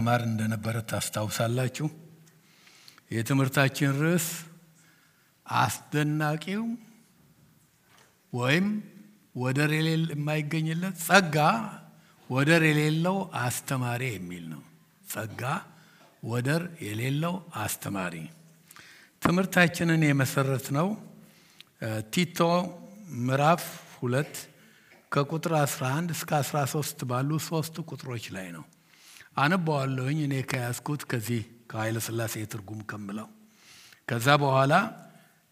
ማር እንደነበረ ታስታውሳላችሁ። የትምህርታችን ርዕስ አስደናቂው ወይም ወደር የማይገኝለት ጸጋ ወደር የሌለው አስተማሪ የሚል ነው። ጸጋ ወደር የሌለው አስተማሪ። ትምህርታችንን የመሰረትነው ቲቶ ምዕራፍ 2 ከቁጥር 11 እስከ 13 ባሉ 3 ቁጥሮች ላይ ነው። አነባዋለሁኝ እኔ ከያዝኩት ከዚህ ከኃይለ ሥላሴ ትርጉም ከምለው። ከዛ በኋላ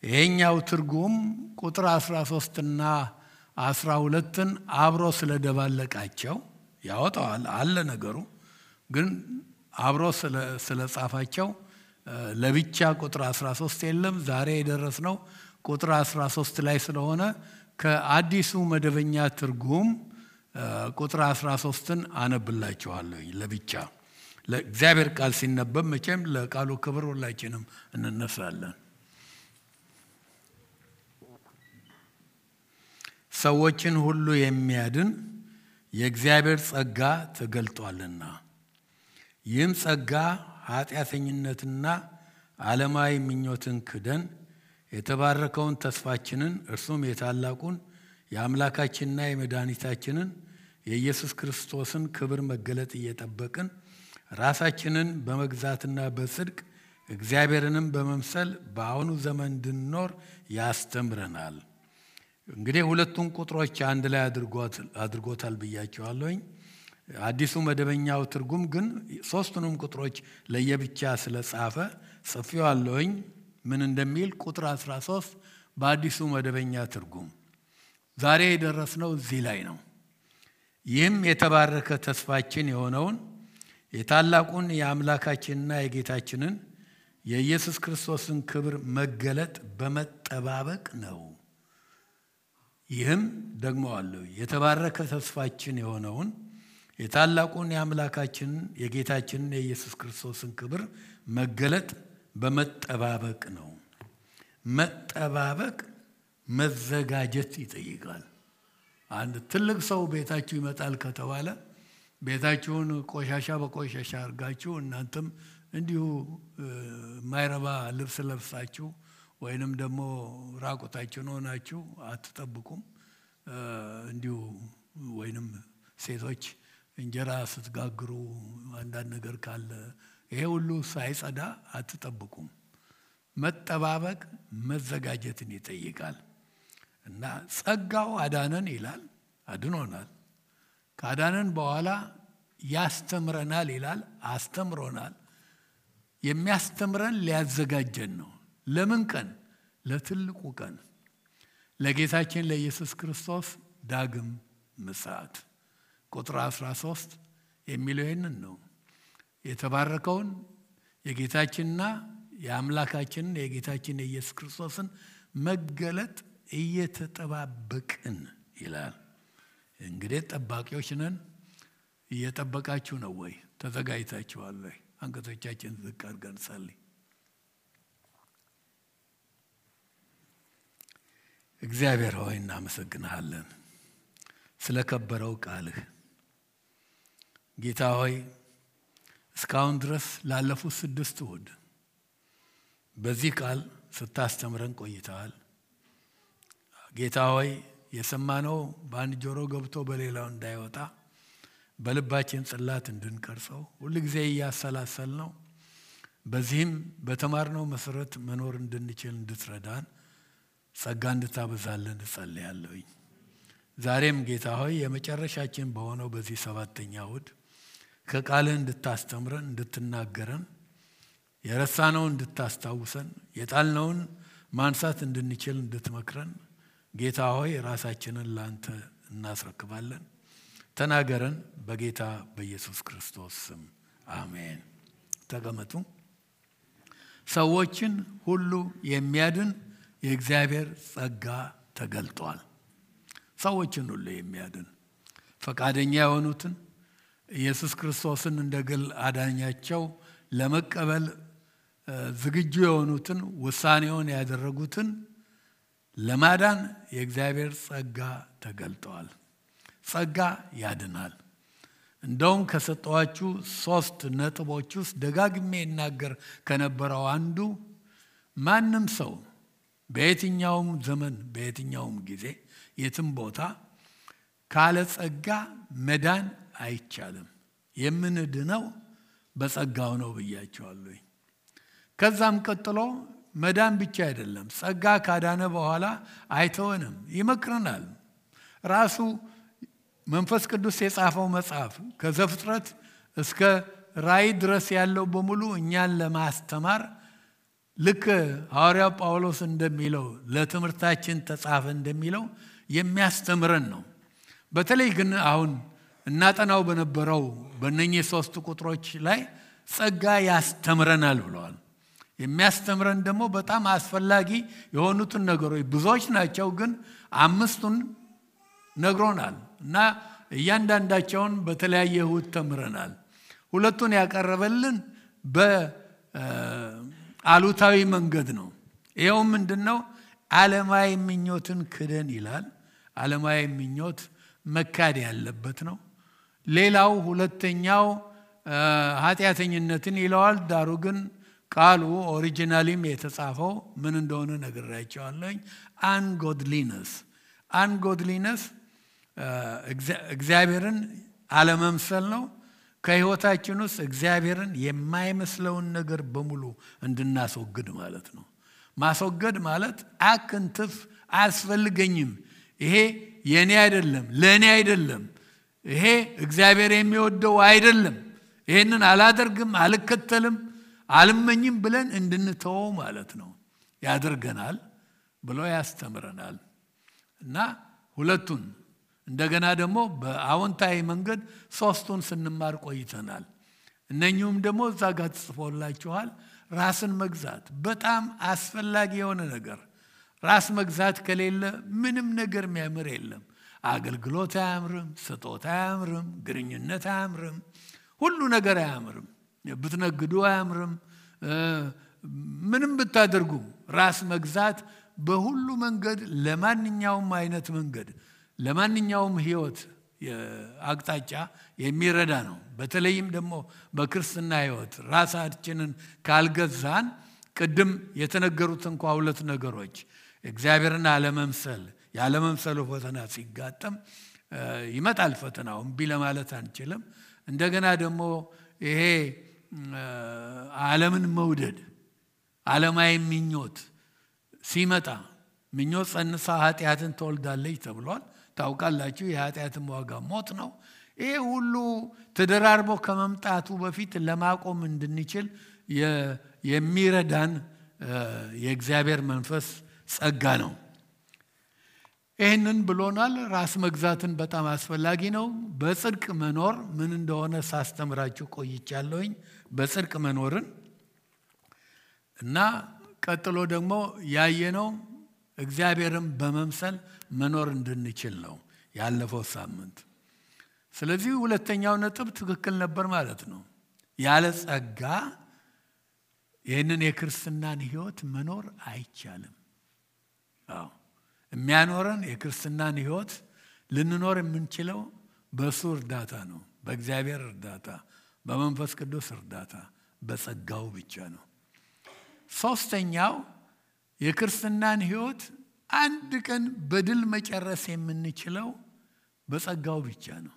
ይሄኛው ትርጉም ቁጥር 13 እና 12ን አብሮ ስለደባለቃቸው ያወጣዋል አለ ነገሩ፣ ግን አብሮ ስለጻፋቸው ለብቻ ቁጥር 13 የለም። ዛሬ የደረስነው ቁጥር 13 ላይ ስለሆነ ከአዲሱ መደበኛ ትርጉም ቁጥር 13ን አነብላችኋለሁ ለብቻ። ለእግዚአብሔር ቃል ሲነበብ መቼም ለቃሉ ክብር ሁላችንም እንነሳለን። ሰዎችን ሁሉ የሚያድን የእግዚአብሔር ጸጋ ተገልጧልና፣ ይህም ጸጋ ኃጢአተኝነትና ዓለማዊ ምኞትን ክደን የተባረከውን ተስፋችንን እርሱም የታላቁን የአምላካችንና የመድኃኒታችንን የኢየሱስ ክርስቶስን ክብር መገለጥ እየጠበቅን ራሳችንን በመግዛትና በጽድቅ እግዚአብሔርንም በመምሰል በአሁኑ ዘመን እንድንኖር ያስተምረናል። እንግዲህ ሁለቱን ቁጥሮች አንድ ላይ አድርጎታል ብያቸዋለሁኝ። አዲሱ መደበኛው ትርጉም ግን ሶስቱንም ቁጥሮች ለየብቻ ስለጻፈ ጽፌዋለሁኝ። ምን እንደሚል ቁጥር 13 በአዲሱ መደበኛ ትርጉም ዛሬ የደረስነው እዚህ ላይ ነው። ይህም የተባረከ ተስፋችን የሆነውን የታላቁን የአምላካችንና የጌታችንን የኢየሱስ ክርስቶስን ክብር መገለጥ በመጠባበቅ ነው። ይህም ደግሞ አለው የተባረከ ተስፋችን የሆነውን የታላቁን የአምላካችንን የጌታችንን የኢየሱስ ክርስቶስን ክብር መገለጥ በመጠባበቅ ነው። መጠባበቅ መዘጋጀት ይጠይቃል። አንድ ትልቅ ሰው ቤታችሁ ይመጣል ከተባለ ቤታችሁን ቆሻሻ በቆሻሻ አድርጋችሁ እናንተም እንዲሁ ማይረባ ልብስ ለብሳችሁ ወይንም ደግሞ ራቆታችሁን ሆናችሁ አትጠብቁም። እንዲሁ ወይንም ሴቶች እንጀራ ስትጋግሩ አንዳንድ ነገር ካለ ይሄ ሁሉ ሳይጸዳ አትጠብቁም። መጠባበቅ መዘጋጀትን ይጠይቃል። እና ጸጋው አዳነን ይላል፣ አድኖናል። ካዳነን በኋላ ያስተምረናል ይላል፣ አስተምሮናል። የሚያስተምረን ሊያዘጋጀን ነው። ለምን ቀን? ለትልቁ ቀን፣ ለጌታችን ለኢየሱስ ክርስቶስ ዳግም ምጽአት። ቁጥር 13 የሚለው ይህንን ነው። የተባረከውን የጌታችንና የአምላካችንን የጌታችን የኢየሱስ ክርስቶስን መገለጥ እየተጠባበቅን ይላል። እንግዲህ ጠባቂዎች ነን። እየጠበቃችሁ ነው ወይ? ተዘጋጅታችኋል ወይ? አንገቶቻችን ዝቅ አድርገን እንጸልይ። እግዚአብሔር ሆይ እናመሰግንሃለን ስለከበረው ቃልህ። ጌታ ሆይ እስካሁን ድረስ ላለፉት 6 እሁድ በዚህ ቃል ስታስተምረን ቆይተሃል። ጌታ ሆይ የሰማነው በአንድ ጆሮ ገብቶ በሌላው እንዳይወጣ በልባችን ጽላት እንድንቀርጸው ሁልጊዜ እያሰላሰልነው በዚህም በተማርነው መሰረት መኖር እንድንችል እንድትረዳን ጸጋ እንድታበዛልን እጸልያለሁኝ። ዛሬም ጌታ ሆይ የመጨረሻችን በሆነው በዚህ 7ኛ እሁድ ከቃልህ እንድታስተምረን እንድትናገረን የረሳነውን እንድታስታውሰን የጣልነውን ማንሳት እንድንችል እንድትመክረን ጌታ ሆይ ራሳችንን ላንተ እናስረክባለን። ተናገረን በጌታ በኢየሱስ ክርስቶስ ስም አሜን። ተቀመጡ። ሰዎችን ሁሉ የሚያድን የእግዚአብሔር ጸጋ ተገልጧል። ሰዎችን ሁሉ የሚያድን ፈቃደኛ የሆኑትን ኢየሱስ ክርስቶስን እንደ ግል አዳኛቸው ለመቀበል ዝግጁ የሆኑትን ውሳኔውን ያደረጉትን ለማዳን የእግዚአብሔር ጸጋ ተገልጧል። ጸጋ ያድናል። እንደውም ከሰጠዋችሁ 3 ነጥቦች ውስጥ ደጋግሜ እናገር ከነበረው አንዱ ማንም ሰው በየትኛውም ዘመን በየትኛውም ጊዜ የትም ቦታ ካለ ጸጋ መዳን አይቻልም። የምንድነው በጸጋው ነው ብያቸዋለሁ። ከዛም ቀጥሎ መዳን ብቻ አይደለም፣ ጸጋ ካዳነ በኋላ አይተወንም፣ ይመክረናል። ራሱ መንፈስ ቅዱስ የጻፈው መጽሐፍ ከዘፍጥረት እስከ ራእይ ድረስ ያለው በሙሉ እኛን ለማስተማር ልክ ሐዋርያው ጳውሎስ እንደሚለው ለትምህርታችን ተጻፈ እንደሚለው የሚያስተምረን ነው። በተለይ ግን አሁን እናጠናው በነበረው በእነኚህ 3 ቁጥሮች ላይ ጸጋ ያስተምረናል ብለዋል። የሚያስተምረን ደግሞ በጣም አስፈላጊ የሆኑትን ነገሮች ብዙዎች ናቸው፣ ግን 5ቱን ነግሮናል እና እያንዳንዳቸውን በተለያየ እሁድ ተምረናል። 2ቱን ያቀረበልን በአሉታዊ መንገድ ነው። ይኸው ምንድነው? ዓለማዊ ምኞትን ክደን ይላል። ዓለማዊ ምኞት መካድ ያለበት ነው። ሌላው ሁለተኛው ኃጢአተኝነትን ይለዋል። ዳሩ ግን ቃሉ ኦሪጂናሊም የተጻፈው ምን እንደሆነ ነግራቸዋለሁ። አንጎድሊነስ እግዚአብሔርን አለመምሰል ነው። ከህይወታችን ውስጥ እግዚአብሔርን የማይመስለውን ነገር በሙሉ እንድናስወግድ ማለት ነው። ማስወገድ ማለት አክንትፍ አያስፈልገኝም፣ ይሄ የኔ አይደለም፣ ለኔ አይደለም፣ ይሄ እግዚአብሔር የሚወደው አይደለም፣ ይሄንን አላደርግም፣ አልከተልም፣ አልመኝም ብለን እንድንተወው ማለት ነው ያደርገናል ብሎ ያስተምረናል። እና 2ቱን እንደገና ደግሞ በአዎንታዊ መንገድ 3ቱን ስንማር ቆይተናል። እነኚህም ደግሞ እዛ ጋር ተጽፎላችኋል። ራስን መግዛት በጣም አስፈላጊ የሆነ ነገር። ራስ መግዛት ከሌለ ምንም ነገር የሚያምር የለም። አገልግሎት አያምርም፣ ስጦታ አያምርም፣ ግንኙነት አያምርም፣ ሁሉ ነገር አያምርም። ብትነግዱ አያምርም፣ ምንም ብታደርጉ ራስ መግዛት በሁሉ መንገድ ለማንኛውም አይነት መንገድ ለማንኛውም ህይወት አቅጣጫ የሚረዳ ነው። በተለይም ደግሞ በክርስትና ህይወት ራሳችንን ካልገዛን ቅድም የተነገሩት እንኳን 2 ነገሮች እግዚአብሔርን አለመምሰል ያለመምሰሉ ፈተና ሲጋጠም ይመጣል። ፈተናው እምቢ ለማለት አንችልም። እንደገና ደግሞ ይሄ ዓለምን መውደድ ዓለማዊ ምኞት ሲመጣ ምኞት ጸንሳ ኃጢአትን ትወልዳለች ተብሏል። ታውቃላችሁ፣ የኃጢአትም ዋጋ ሞት ነው። ይሄ ሁሉ ተደራርቦ ከመምጣቱ በፊት ለማቆም እንድንችል የሚረዳን የእግዚአብሔር መንፈስ ጸጋ ነው። ይህንን ብሎናል። ራስ መግዛትን በጣም አስፈላጊ ነው። በጽድቅ መኖር ምን እንደሆነ ሳስተምራችሁ ቆይቻለሁኝ። በጽድቅ መኖርን እና ቀጥሎ ደግሞ ያየነው እግዚአብሔርን በመምሰል መኖር እንድንችል ነው ያለፈው ሳምንት። ስለዚህ 2ኛው ነጥብ ትክክል ነበር ማለት ነው። ያለ ጸጋ ይህንን የክርስትናን ህይወት መኖር አይቻልም። የሚያኖረን የክርስትናን ህይወት ልንኖር የምንችለው በሱ እርዳታ ነው። በእግዚአብሔር እርዳታ፣ በመንፈስ ቅዱስ እርዳታ፣ በጸጋው ብቻ ነው። 3ኛው የክርስትናን ህይወት አንድ ቀን በድል መጨረስ የምንችለው በጸጋው ብቻ ነው።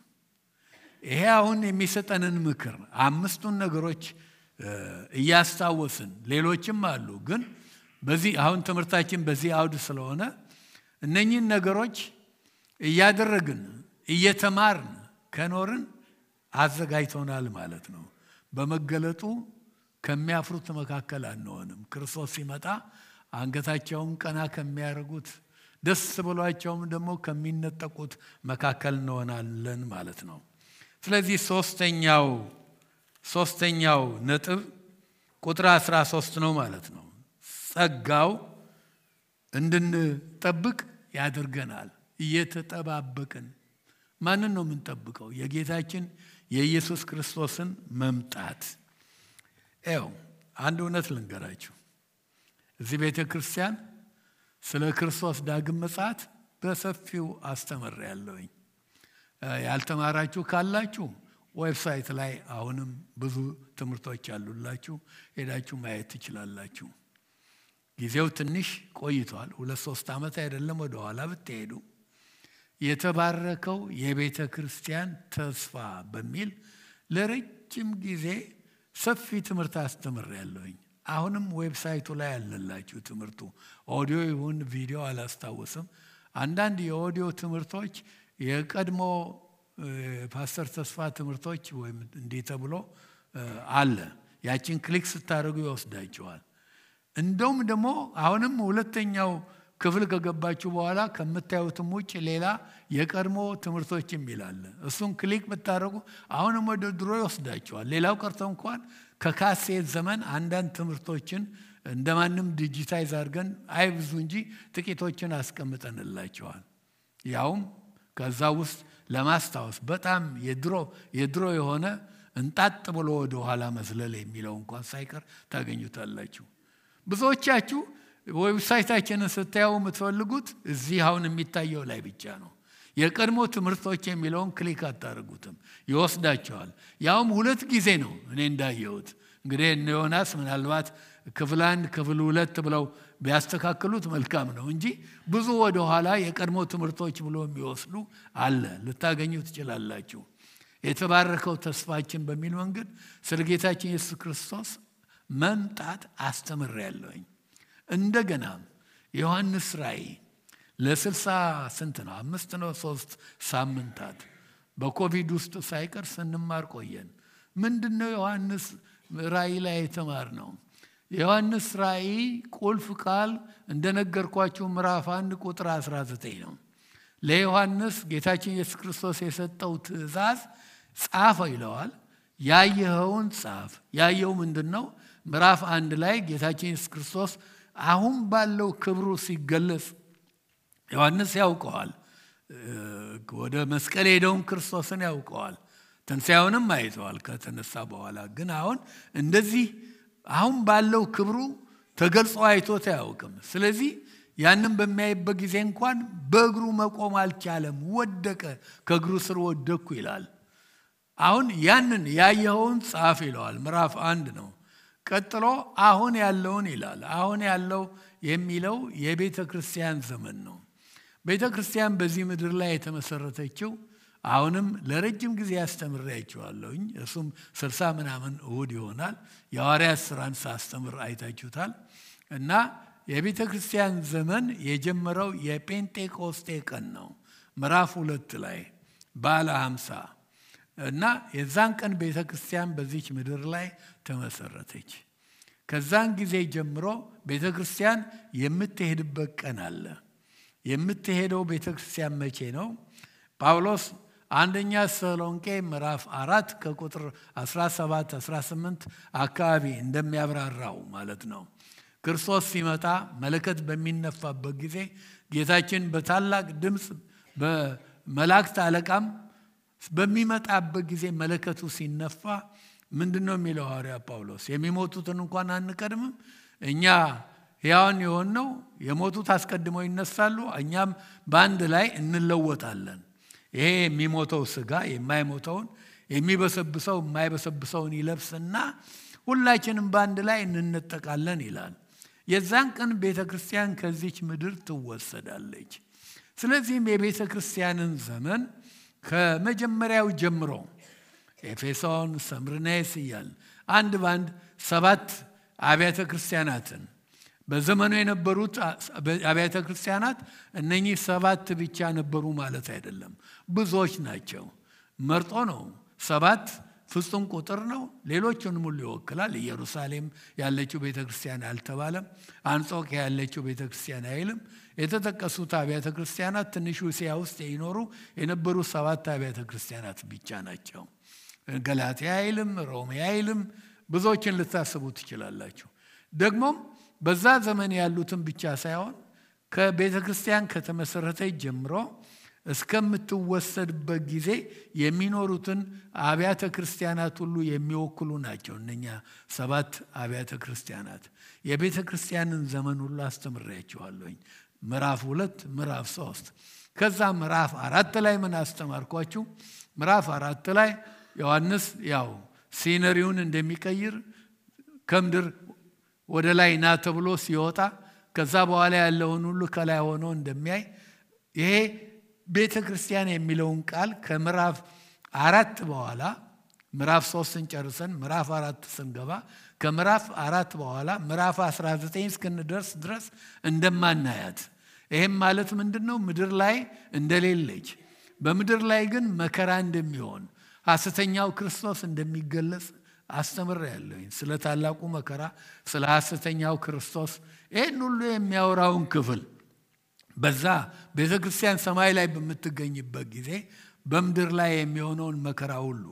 ይሄ አሁን የሚሰጠንን ምክር 5ቱን ነገሮች እያስታወስን ሌሎችም አሉ፣ ግን በዚህ አሁን ትምህርታችን በዚህ አውድ ስለሆነ እነኚህን ነገሮች እያደረግን እየተማርን ከኖርን አዘጋጅቶናል ማለት ነው። በመገለጡ ከሚያፍሩት መካከል አንሆንም። ክርስቶስ ሲመጣ አንገታቸውን ቀና ከሚያደርጉት ደስ ብሏቸውም ደግሞ ከሚነጠቁት መካከል እንሆናለን ማለት ነው። ስለዚህ ሶስተኛው ነጥብ ቁጥር 13 ነው ማለት ነው። ጸጋው እንድንጠብቅ ያደርገናል። እየተጠባበቅን ማንን ነው የምንጠብቀው? የጌታችን የኢየሱስ ክርስቶስን መምጣት። አንድ እውነት ልንገራችሁ። እዚህ ቤተ ክርስቲያን ስለ ክርስቶስ ዳግም ምጽአት በሰፊው አስተምሬያለሁኝ። ያልተማራችሁ ካላችሁ ዌብሳይት ላይ አሁንም ብዙ ትምህርቶች አሉላችሁ ሄዳችሁ ማየት ትችላላችሁ። ጊዜው ትንሽ ቆይቷል 2-3 ዓመት አይደለም ወደ ኋላ ብትሄዱ የተባረከው የቤተ ክርስቲያን ተስፋ በሚል ለረጅም ጊዜ ሰፊ ትምህርት አስተምሬያለሁኝ። አሁንም ዌብሳይቱ ላይ አለላችሁ ትምህርቱ ኦዲዮ ይሁን ቪዲዮ አላስታውስም። አንዳንድ የኦዲዮ ትምህርቶች የቀድሞ ፓስተር ተስፋ ትምህርቶች ወይም እንዲህ ተብሎ አለ ያችን ክሊክ ስታደርጉ ይወስዳችኋል። እንደውም ደግሞ አሁንም ሁለተኛው ክፍል ከገባችሁ በኋላ ከምታዩትም ውጭ ሌላ የቀድሞ ትምህርቶችም ይላል እሱን ክሊክ ብታደርጉ አሁንም ወደ ድሮ ይወስዳችኋል። ሌላው ቀርቶ እንኳን ከካሴት ዘመን አንዳንድ ትምህርቶችን እንደማንም ዲጂታይዝ አድርገን አይብዙ እንጂ ጥቂቶችን አስቀምጠንላችኋል። ያውም ከዛ ውስጥ ለማስታወስ በጣም የድሮ የሆነ እንጣጥ ብሎ ወደ ኋላ መዝለል የሚለው እንኳን ሳይቀር ታገኙታላችሁ። ብዙዎቻችሁ ዌብሳይታችንን ስታዩ የምትፈልጉት እዚህ አሁን የሚታየው ላይ ብቻ ነው። የቀድሞ ትምህርቶች የሚለውን ክሊክ አታደርጉትም ይወስዳችኋል። ያውም 2 ጊዜ ነው እኔ እንዳየሁት። እንግዲህ እነ ዮናስ ምናልባት ክፍል 1 ክፍል 2 ብለው ቢያስተካክሉት መልካም ነው እንጂ ብዙ ወደ ኋላ የቀድሞ ትምህርቶች ብሎ የሚወስዱ አለ ልታገኙ ትችላላችሁ። የተባረከው ተስፋችን በሚል መንገድ ስለ ጌታችን ኢየሱስ ክርስቶስ መምጣት አስተምሬያለሁኝ። እንደገና ዮሐንስ ራእይ ለ60 ስንት ነው 5 ነው 3 ሳምንታት በኮቪድ ውስጥ ሳይቀር ስንማር ቆየን። ምንድነው ዮሐንስ ራእይ ላይ የተማርነው? ዮሐንስ ራእይ ቁልፍ ቃል እንደነገርኳችሁ ምዕራፍ 1 ቁጥር 19 ነው። ለዮሐንስ ጌታችን ኢየሱስ ክርስቶስ የሰጠው ትእዛዝ ጻፈ ይለዋል። ያየኸውን ጻፍ። ያየው ምንድነው? ምዕራፍ 1 ላይ ጌታችን ኢየሱስ ክርስቶስ አሁን ባለው ክብሩ ሲገለጽ ዮሐንስ ያውቀዋል። ወደ መስቀል ሄደውን ክርስቶስን ያውቀዋል። ትንሣኤውንም አይተዋል ከተነሳ በኋላ። ግን አሁን እንደዚህ አሁን ባለው ክብሩ ተገልጾ አይቶት አያውቅም። ስለዚህ ያንን በሚያይበት ጊዜ እንኳን በእግሩ መቆም አልቻለም፣ ወደቀ፣ ከእግሩ ስር ወደቅኩ ይላል። አሁን ያንን ያየኸውን ጻፍ ይለዋል። ምዕራፍ 1 ነው። ቀጥሎ አሁን ያለውን ይላል። አሁን ያለው የሚለው የቤተ ክርስቲያን ዘመን ነው። ቤተ ክርስቲያን በዚህ ምድር ላይ የተመሰረተችው አሁንም ለረጅም ጊዜ ያስተምራችኋለሁኝ እሱም 60 ምናምን እሁድ ይሆናል። የሐዋርያት ሥራን ሳስተምር አይታችሁታል። እና የቤተ ክርስቲያን ዘመን የጀመረው የጴንጤቆስጤ ቀን ነው ምዕራፍ 2 ላይ ባለ 50 እና የዛን ቀን ቤተ ክርስቲያን በዚች ምድር ላይ ተመሰረተች። ከዛን ጊዜ ጀምሮ ቤተ ክርስቲያን የምትሄድበት ቀን አለ። የምትሄደው ቤተ ክርስቲያን መቼ ነው? ጳውሎስ አንደኛ ተሰሎንቄ ምዕራፍ 4 ከቁጥር 17-18 አካባቢ እንደሚያብራራው ማለት ነው። ክርስቶስ ሲመጣ መለከት በሚነፋበት ጊዜ ጌታችን በታላቅ ድምፅ በመላእክት አለቃም በሚመጣበት ጊዜ መለከቱ ሲነፋ ምንድነው የሚለው ሐዋርያ ጳውሎስ? የሚሞቱትን እንኳን አንቀድምም፣ እኛ ሕያዋን የሆንነው የሞቱት አስቀድመው ይነሳሉ፣ እኛም በአንድ ላይ እንለወጣለን። ይሄ የሚሞተው ሥጋ የማይሞተውን የሚበሰብሰው የማይበሰብሰውን ይለብስና ሁላችንም በአንድ ላይ እንነጠቃለን ይላል። የዛን ቀን ቤተ ክርስቲያን ከዚች ምድር ትወሰዳለች። ስለዚህም የቤተ ክርስቲያንን ዘመን ከመጀመሪያው ጀምሮ ኤፌሶን፣ ሰምርኔስ እያል አንድ ባንድ 7 አብያተ ክርስቲያናትን በዘመኑ የነበሩት አብያተ ክርስቲያናት እነኚህ 7 ብቻ ነበሩ ማለት አይደለም፣ ብዙዎች ናቸው። መርጦ ነው 7 ፍጹም ቁጥር ነው። ሌሎቹንም ሁሉ ይወክላል። ኢየሩሳሌም ያለችው ቤተክርስቲያን አልተባለም። አንጾኪያ ያለችው ቤተክርስቲያን አይልም። የተጠቀሱት አብያተ ክርስቲያናት ትንሽ እስያ ውስጥ ይኖሩ የነበሩ 7 አብያተ ክርስቲያናት ብቻ ናቸው። ገላትያ አይልም፣ ሮሜ አይልም። ብዙዎችን ልታስቡ ትችላላችሁ። ደግሞም በዛ ዘመን ያሉትን ብቻ ሳይሆን ከቤተ ክርስቲያን ከተመሰረተች ጀምሮ እስከምትወሰድበት ጊዜ የሚኖሩትን አብያተ ክርስቲያናት ሁሉ የሚወክሉ ናቸው። እነኛ 7 አብያተ ክርስቲያናት የቤተ ክርስቲያንን ዘመን ሁሉ አስተምሬያችኋለሁኝ። ምዕራፍ 2 ምዕራፍ 3 ከዛ ምዕራፍ 4 ላይ ምን አስተማርኳችሁ? ምዕራፍ 4 ላይ ዮሐንስ ያው ሲነሪውን እንደሚቀይር ከምድር ወደ ላይ ና ተብሎ ሲወጣ ከዛ በኋላ ያለውን ሁሉ ከላይ ሆኖ እንደሚያይ ይሄ ቤተክርስቲያን የሚለውን ቃል ከምዕራፍ 4 በኋላ ምዕራፍ 3ን ጨርሰን ምዕራፍ 4 ስንገባ ከምዕራፍ 4 በኋላ ምዕራፍ 19 እስክንደርስ ድረስ እንደማናያት ይሄም ማለት ምንድነው ምድር ላይ እንደሌለች በምድር ላይ ግን መከራ እንደሚሆን ሐሰተኛው ክርስቶስ እንደሚገለጽ አስተምራለሁ ስለ ታላቁ መከራ ስለ ሐሰተኛው ክርስቶስ ይሄን ሁሉ የሚያወራውን ክፍል በዛ ቤተክርስቲያን ሰማይ ላይ በመትገኝበት ጊዜ በምድር ላይ የሚሆነውን መከራ ሁሉ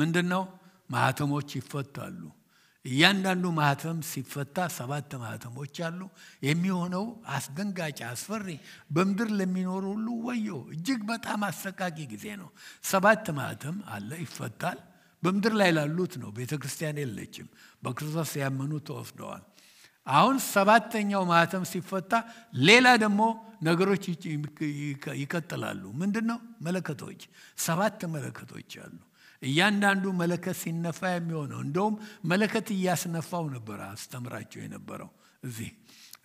ምንድነው ማህተሞች ይፈታሉ እያንዳንዱ ማህተም ሲፈታ 7 ማህተሞች አሉ የሚሆነው አስደንጋጭ አስፈሪ በምድር ለሚኖር ሁሉ ወዮ እጅግ በጣም አሰቃቂ ጊዜ ነው 7 ማህተም አለ ይፈታል በምድር ላይ ላሉት ነው ቤተክርስቲያን የለችም በክርስቶስ ያመኑ ተወስደዋል አሁን 7ኛው ማህተም ሲፈታ ሌላ ደግሞ ነገሮች ይቀጥላሉ ምንድነው መለከቶች 7 መለከቶች አሉ እያንዳንዱ መለከት ሲነፋ የሚሆነው እንደውም መለከት ያስነፋው ነበር አስተምራቸው የነበረው እዚህ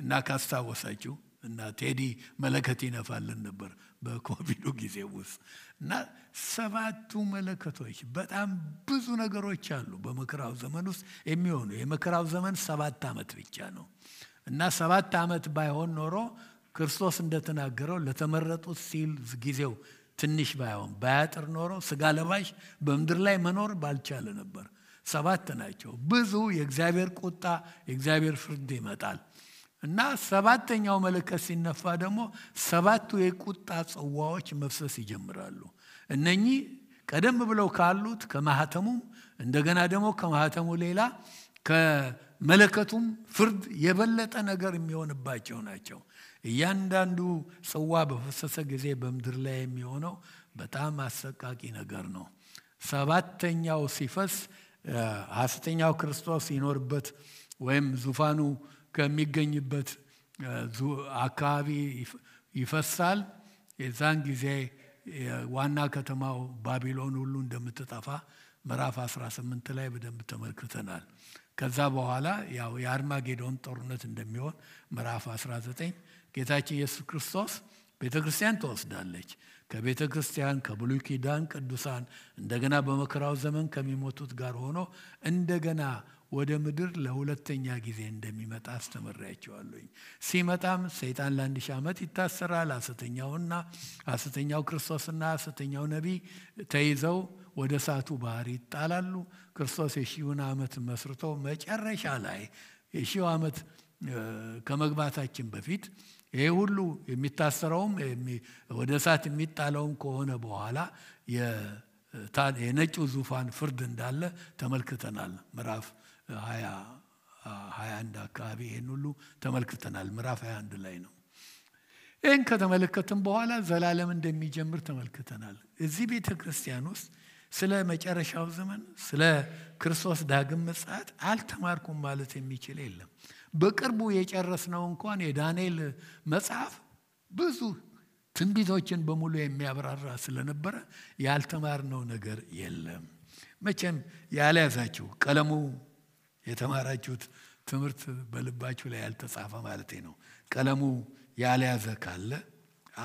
እና ካስታወሳችሁ እና ቴዲ መለከት ይነፋልን ነበር በኮቪዱ ጊዜ ውስጥ እና 7 መለከቶች በጣም ብዙ ነገሮች አሉ በመከራው ዘመን ውስጥ የሚሆኑ የመከራው ዘመን 7 ዓመት ብቻ ነው እና 7 ዓመት ባይሆን ኖሮ ክርስቶስ እንደተናገረው ለተመረጡት ሲል ጊዜው ትንሽ ባያጥር ኖሮ ስጋ ለባሽ በምድር ላይ መኖር ባልቻለ ነበር 7 ናቸው ብዙ የእግዚአብሔር ቁጣ የእግዚአብሔር ፍርድ ይመጣል እና 7ኛው መለከት ሲነፋ ደግሞ 7ቱ የቁጣ ጽዋዎች መፍሰስ ይጀምራሉ እነኚህ ቀደም ብለው ካሉት ከማህተሙም እንደገና ደግሞ ከማህተሙ ሌላ ከመለከቱም ፍርድ የበለጠ ነገር የሚሆንባቸው ናቸው እያንዳንዱ ጽዋ በፈሰሰ ጊዜ በምድር ላይ የሚሆነው በጣም አሰቃቂ ነገር ነው 7ኛው ሲፈስ ሐሰተኛው ክርስቶስ ይኖርበት ወይም ዙፋኑ ከሚገኝበት አካባቢ ይፈሳል የዛን ጊዜ ዋና ከተማው ባቢሎን ሁሉ እንደምትጠፋ ምዕራፍ 18 ላይ በደንብ ተመልክተናል ከዛ በኋላ ያው የአርማጌዶን ጦርነት እንደሚሆን ምዕራፍ 19 ጌታችን ኢየሱስ ክርስቶስ ቤተክርስቲያን ተወስዳለች ከቤተክርስቲያን ከብሉይ ኪዳን ቅዱሳን እንደገና በመከራው ዘመን ከሚሞቱት ጋር ሆኖ እንደገና ወደ ምድር ለሁለተኛ ጊዜ እንደሚመጣ አስተምራቸዋለሁ ሲመጣም ሰይጣን ለ1000 ዓመት ይታሰራል ሐሰተኛው ክርስቶስና ሐሰተኛው ነቢይ ተይዘው ወደ እሳቱ ባህር ይጣላሉ ክርስቶስ የሺውን ዓመት መስርቶ መጨረሻ ላይ የሺው ዓመት ከመግባታችን በፊት ይሄ ሁሉ የሚታሰረውም ወደ እሳት የሚጣለውም ከሆነ በኋላ የነጩ ዙፋን ፍርድ እንዳለ ተመልክተናል ምዕራፍ 21 አካባቢ ይሄን ሁሉ ተመልክተናል ምዕራፍ 21 ላይ ነው ይሄን ከተመለከተን በኋላ ዘላለም እንደሚጀምር ተመልክተናል እዚህ ቤተክርስቲያን ውስጥ ስለ መጨረሻው ዘመን ስለ ክርስቶስ ዳግም ምጽአት አልተማርኩም ማለት የሚችል የለም በቅርቡ የጨረስነው እንኳን የዳንኤል መጽሐፍ ብዙ ትንቢቶችን በሙሉ የሚያብራራ ስለነበረ ያልተማርነው ነገር የለም መቼም ያልያዛችሁ ቀለሙ የተማራችሁት ትምህርት በልባችሁ ላይ ያልተጻፈ ማለት ነው ቀለሙ ያልያዘ ካለ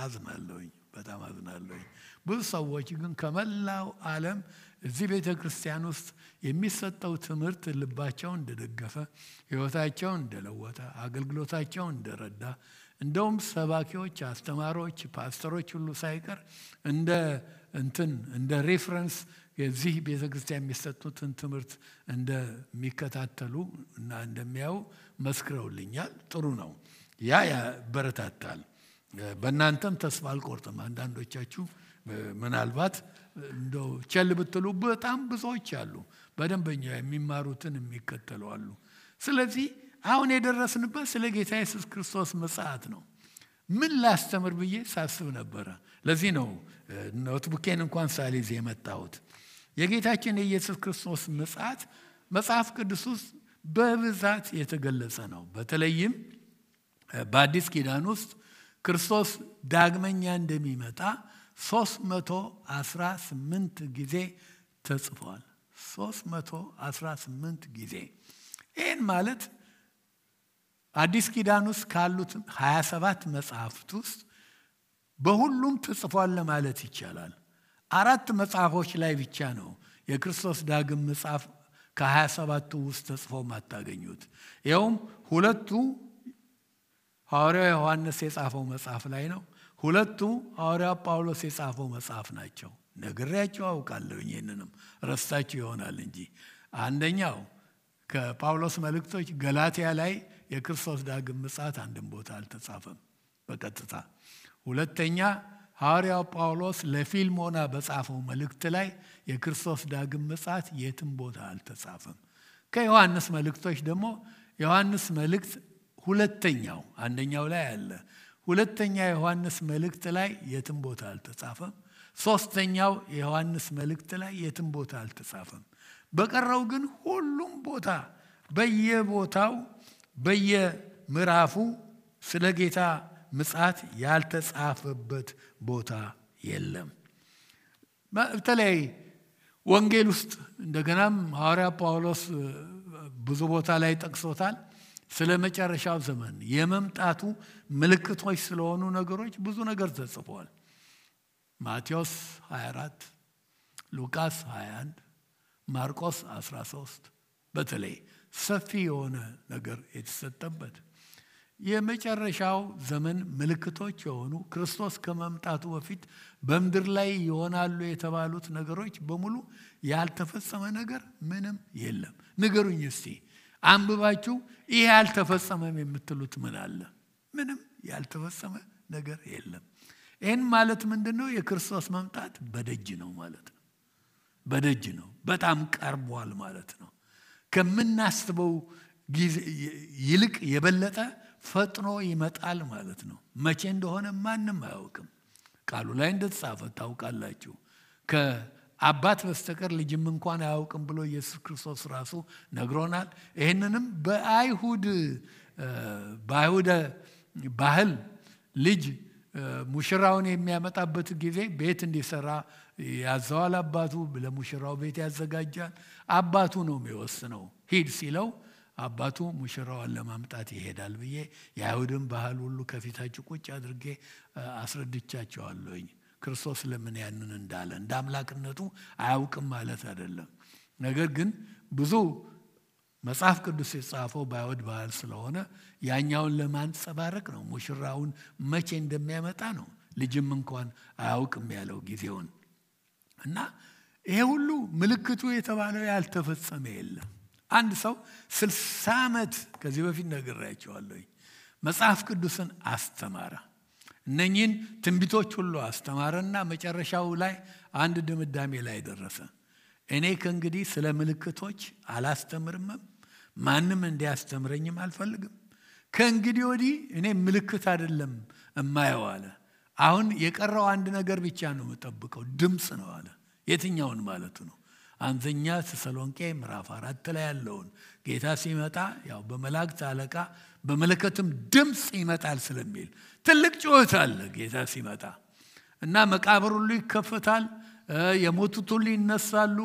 አዝናለሁኝ በጣም አዝናለሁኝ ብዙ ሰዎች ግን ከመላው ዓለም እዚህ ቤተክርስቲያን ውስጥ የሚሰጠው ትምህርት ልባቸው እንደደገፈ ህይወታቸው እንደለወጠ አገልግሎታቸው እንደረዳ እንደውም ሰባኪዎች አስተማሪዎች ፓስተሮች ሁሉ ሳይቀር እንደ ሬፈረንስ የዚህ ቤተክርስቲያን የሚሰጡትን ትምህርት እንደሚከታተሉ እና እንደሚያዩ መስክረውልኛል ጥሩ ነው ያ ያበረታታል በእናንተም ተስፋ አልቆርጥም አንዳንዶቻችሁ ምናልባት እንደው ቸል ብትሉ በጣም ብዙዎች አሉ በደንበኛ የሚማሩትን የሚከተሉ አሉ ስለዚህ አሁን የደረስንበት ስለ ጌታ ኢየሱስ ክርስቶስ ምጽአት ነው ምን ላስተምር ብዬ ሳስብ ነበር ለዚህ ነው ኖትቡኬን እንኳን ሳልይዝ የመጣሁት የጌታችን የኢየሱስ ክርስቶስ ምጽአት መጽሐፍ ቅዱስ ውስጥ በብዛት የተገለጸ ነው በተለይም በአዲስ ኪዳን ውስጥ ክርስቶስ ዳግመኛ እንደሚመጣ 318 ጊዜ ተጽፏል። 318 ጊዜ። ይህን ማለት አዲስ ኪዳን ውስጥ ካሉት 27 መጽሐፍት ውስጥ በሁሉም ተጽፏል ለማለት ይቻላል። 4 መጽሐፎች ላይ ብቻ ነው የክርስቶስ ዳግም መጽሐፍ ከ27ቱ ውስጥ ተጽፎ ማታገኙት። ይኸውም 2ቱ ሐዋርያው ዮሐንስ የጻፈው መጽሐፍ ላይ ነው። 2ቱ ሐዋርያው ጳውሎስ የጻፈው መጽሐፍ ናቸው። ነግሬያችሁ አውቃለሁ፣ ይሄንንም ረስታችሁ ይሆናል እንጂ። አንደኛው ከጳውሎስ መልእክቶች ገላትያ ላይ የክርስቶስ ዳግም ምጽአት አንድም ቦታ አልተጻፈም በቀጥታ። ሁለተኛ ሐዋርያው ጳውሎስ ለፊልሞና በጻፈው መልእክት ላይ የክርስቶስ ዳግም ምጽአት የትም ቦታ አልተጻፈም። ከዮሐንስ መልእክቶች ደግሞ ዮሐንስ መልእክት ሁለተኛው፣ አንደኛው ላይ አለ፣ ሁለተኛ ዮሐንስ መልእክት ላይ የትም ቦታ አልተጻፈም። ሶስተኛው የዮሐንስ መልእክት ላይ የትም ቦታ አልተጻፈም። በቀረው ግን ሁሉም ቦታ በየቦታው በየምዕራፉ ስለ ጌታ ምጽአት ያልተጻፈበት ቦታ የለም። በተለይ ወንጌል ውስጥ እንደገናም ሐዋርያ ጳውሎስ ብዙ ቦታ ላይ ጠቅሶታል። ስለ መጨረሻው ዘመን የመምጣቱ ምልክቶች ስለሆኑ ነገሮች ብዙ ነገር ተጽፏል። ማቴዎስ 24፣ ሉቃስ 21፣ ማርቆስ 13 በተለይ ሰፊ የሆነ ነገር የተሰጠበት የመጨረሻው ዘመን ምልክቶች የሆኑ ክርስቶስ ከመምጣቱ በፊት በምድር ላይ ይሆናሉ የተባሉት ነገሮች በሙሉ ያልተፈጸመ ነገር ምንም የለም። ንገሩኝ እስቲ አንብባችሁ ይሄ ያልተፈጸመም የምትሉት ምን አለ? ምንም ያልተፈጸመ ነገር የለም። ይህን ማለት ምንድነው? የክርስቶስ መምጣት በደጅ ነው ማለት ነው። በደጅ ነው፣ በጣም ቀርቧል ማለት ነው። ከምናስበው ጊዜ ይልቅ የበለጠ ፈጥኖ ይመጣል ማለት ነው። መቼ እንደሆነ ማንም አያውቅም። ቃሉ ላይ እንደተጻፈ ታውቃላችሁ። ከአባት በስተቀር ልጅም እንኳን አያውቅም ብሎ ኢየሱስ ክርስቶስ ራሱ ነግሮናል። ይህንንም በአይሁድ ባህል ልጅ ሙሽራውን የሚያመጣበት ጊዜ ቤት እንዲሰራ ያዘዋል። አባቱ ለሙሽራው ቤት ያዘጋጃል። አባቱ ነው የሚወስነው። ሂድ ሲለው አባቱ ሙሽራውን ለማምጣት ይሄዳል ብዬ የአይሁድን ባህል ሁሉ ከፊታችሁ ቁጭ አድርጌ አስረድቻቸዋለሁኝ። ክርስቶስ ለምን ያንን እንዳለ እንደ አምላክነቱ አያውቅም ማለት አይደለም። ነገር ግን ብዙ መጽሐፍ ቅዱስ የጻፈው በአይሁድ ባህል ስለሆነ ያኛውን ለማንጸባረቅ ነው። ሙሽራውን መቼ እንደሚያመጣ ነው። ልጅም እንኳን አያውቅም ያለው ጊዜውን እና ይሄ ሁሉ ምልክቱ የተባለው ያልተፈጸመ የለም። አንድ ሰው 60 ዓመት ከዚህ በፊት ነግሬያቸዋለሁ መጽሐፍ ቅዱስን አስተማረ። እነኚህን ትንቢቶች ሁሉ አስተማረና መጨረሻው ላይ አንድ ድምዳሜ ላይ ደረሰ። እኔ ከእንግዲህ ስለ ምልክቶች አላስተምርም፣ ማንም እንዲያስተምረኝም አልፈልግም። ከእንግዲህ ወዲህ እኔ ምልክት አይደለም እማየው አለ። አሁን የቀረው አንድ ነገር ብቻ ነው የምጠብቀው፣ ድምፅ ነው አለ። የትኛውን ማለቱ ነው? አንደኛ ተሰሎንቄ ምዕራፍ 4 ላይ ያለውን ጌታ ሲመጣ ያው በመላእክት አለቃ በመለከትም ድምፅ ይመጣል ስለሚል ትልቅ ጩኸት አለ ጌታ ሲመጣ እና መቃብር ሁሉ ይከፈታል፣ የሞቱት ሁሉ ይነሳሉ።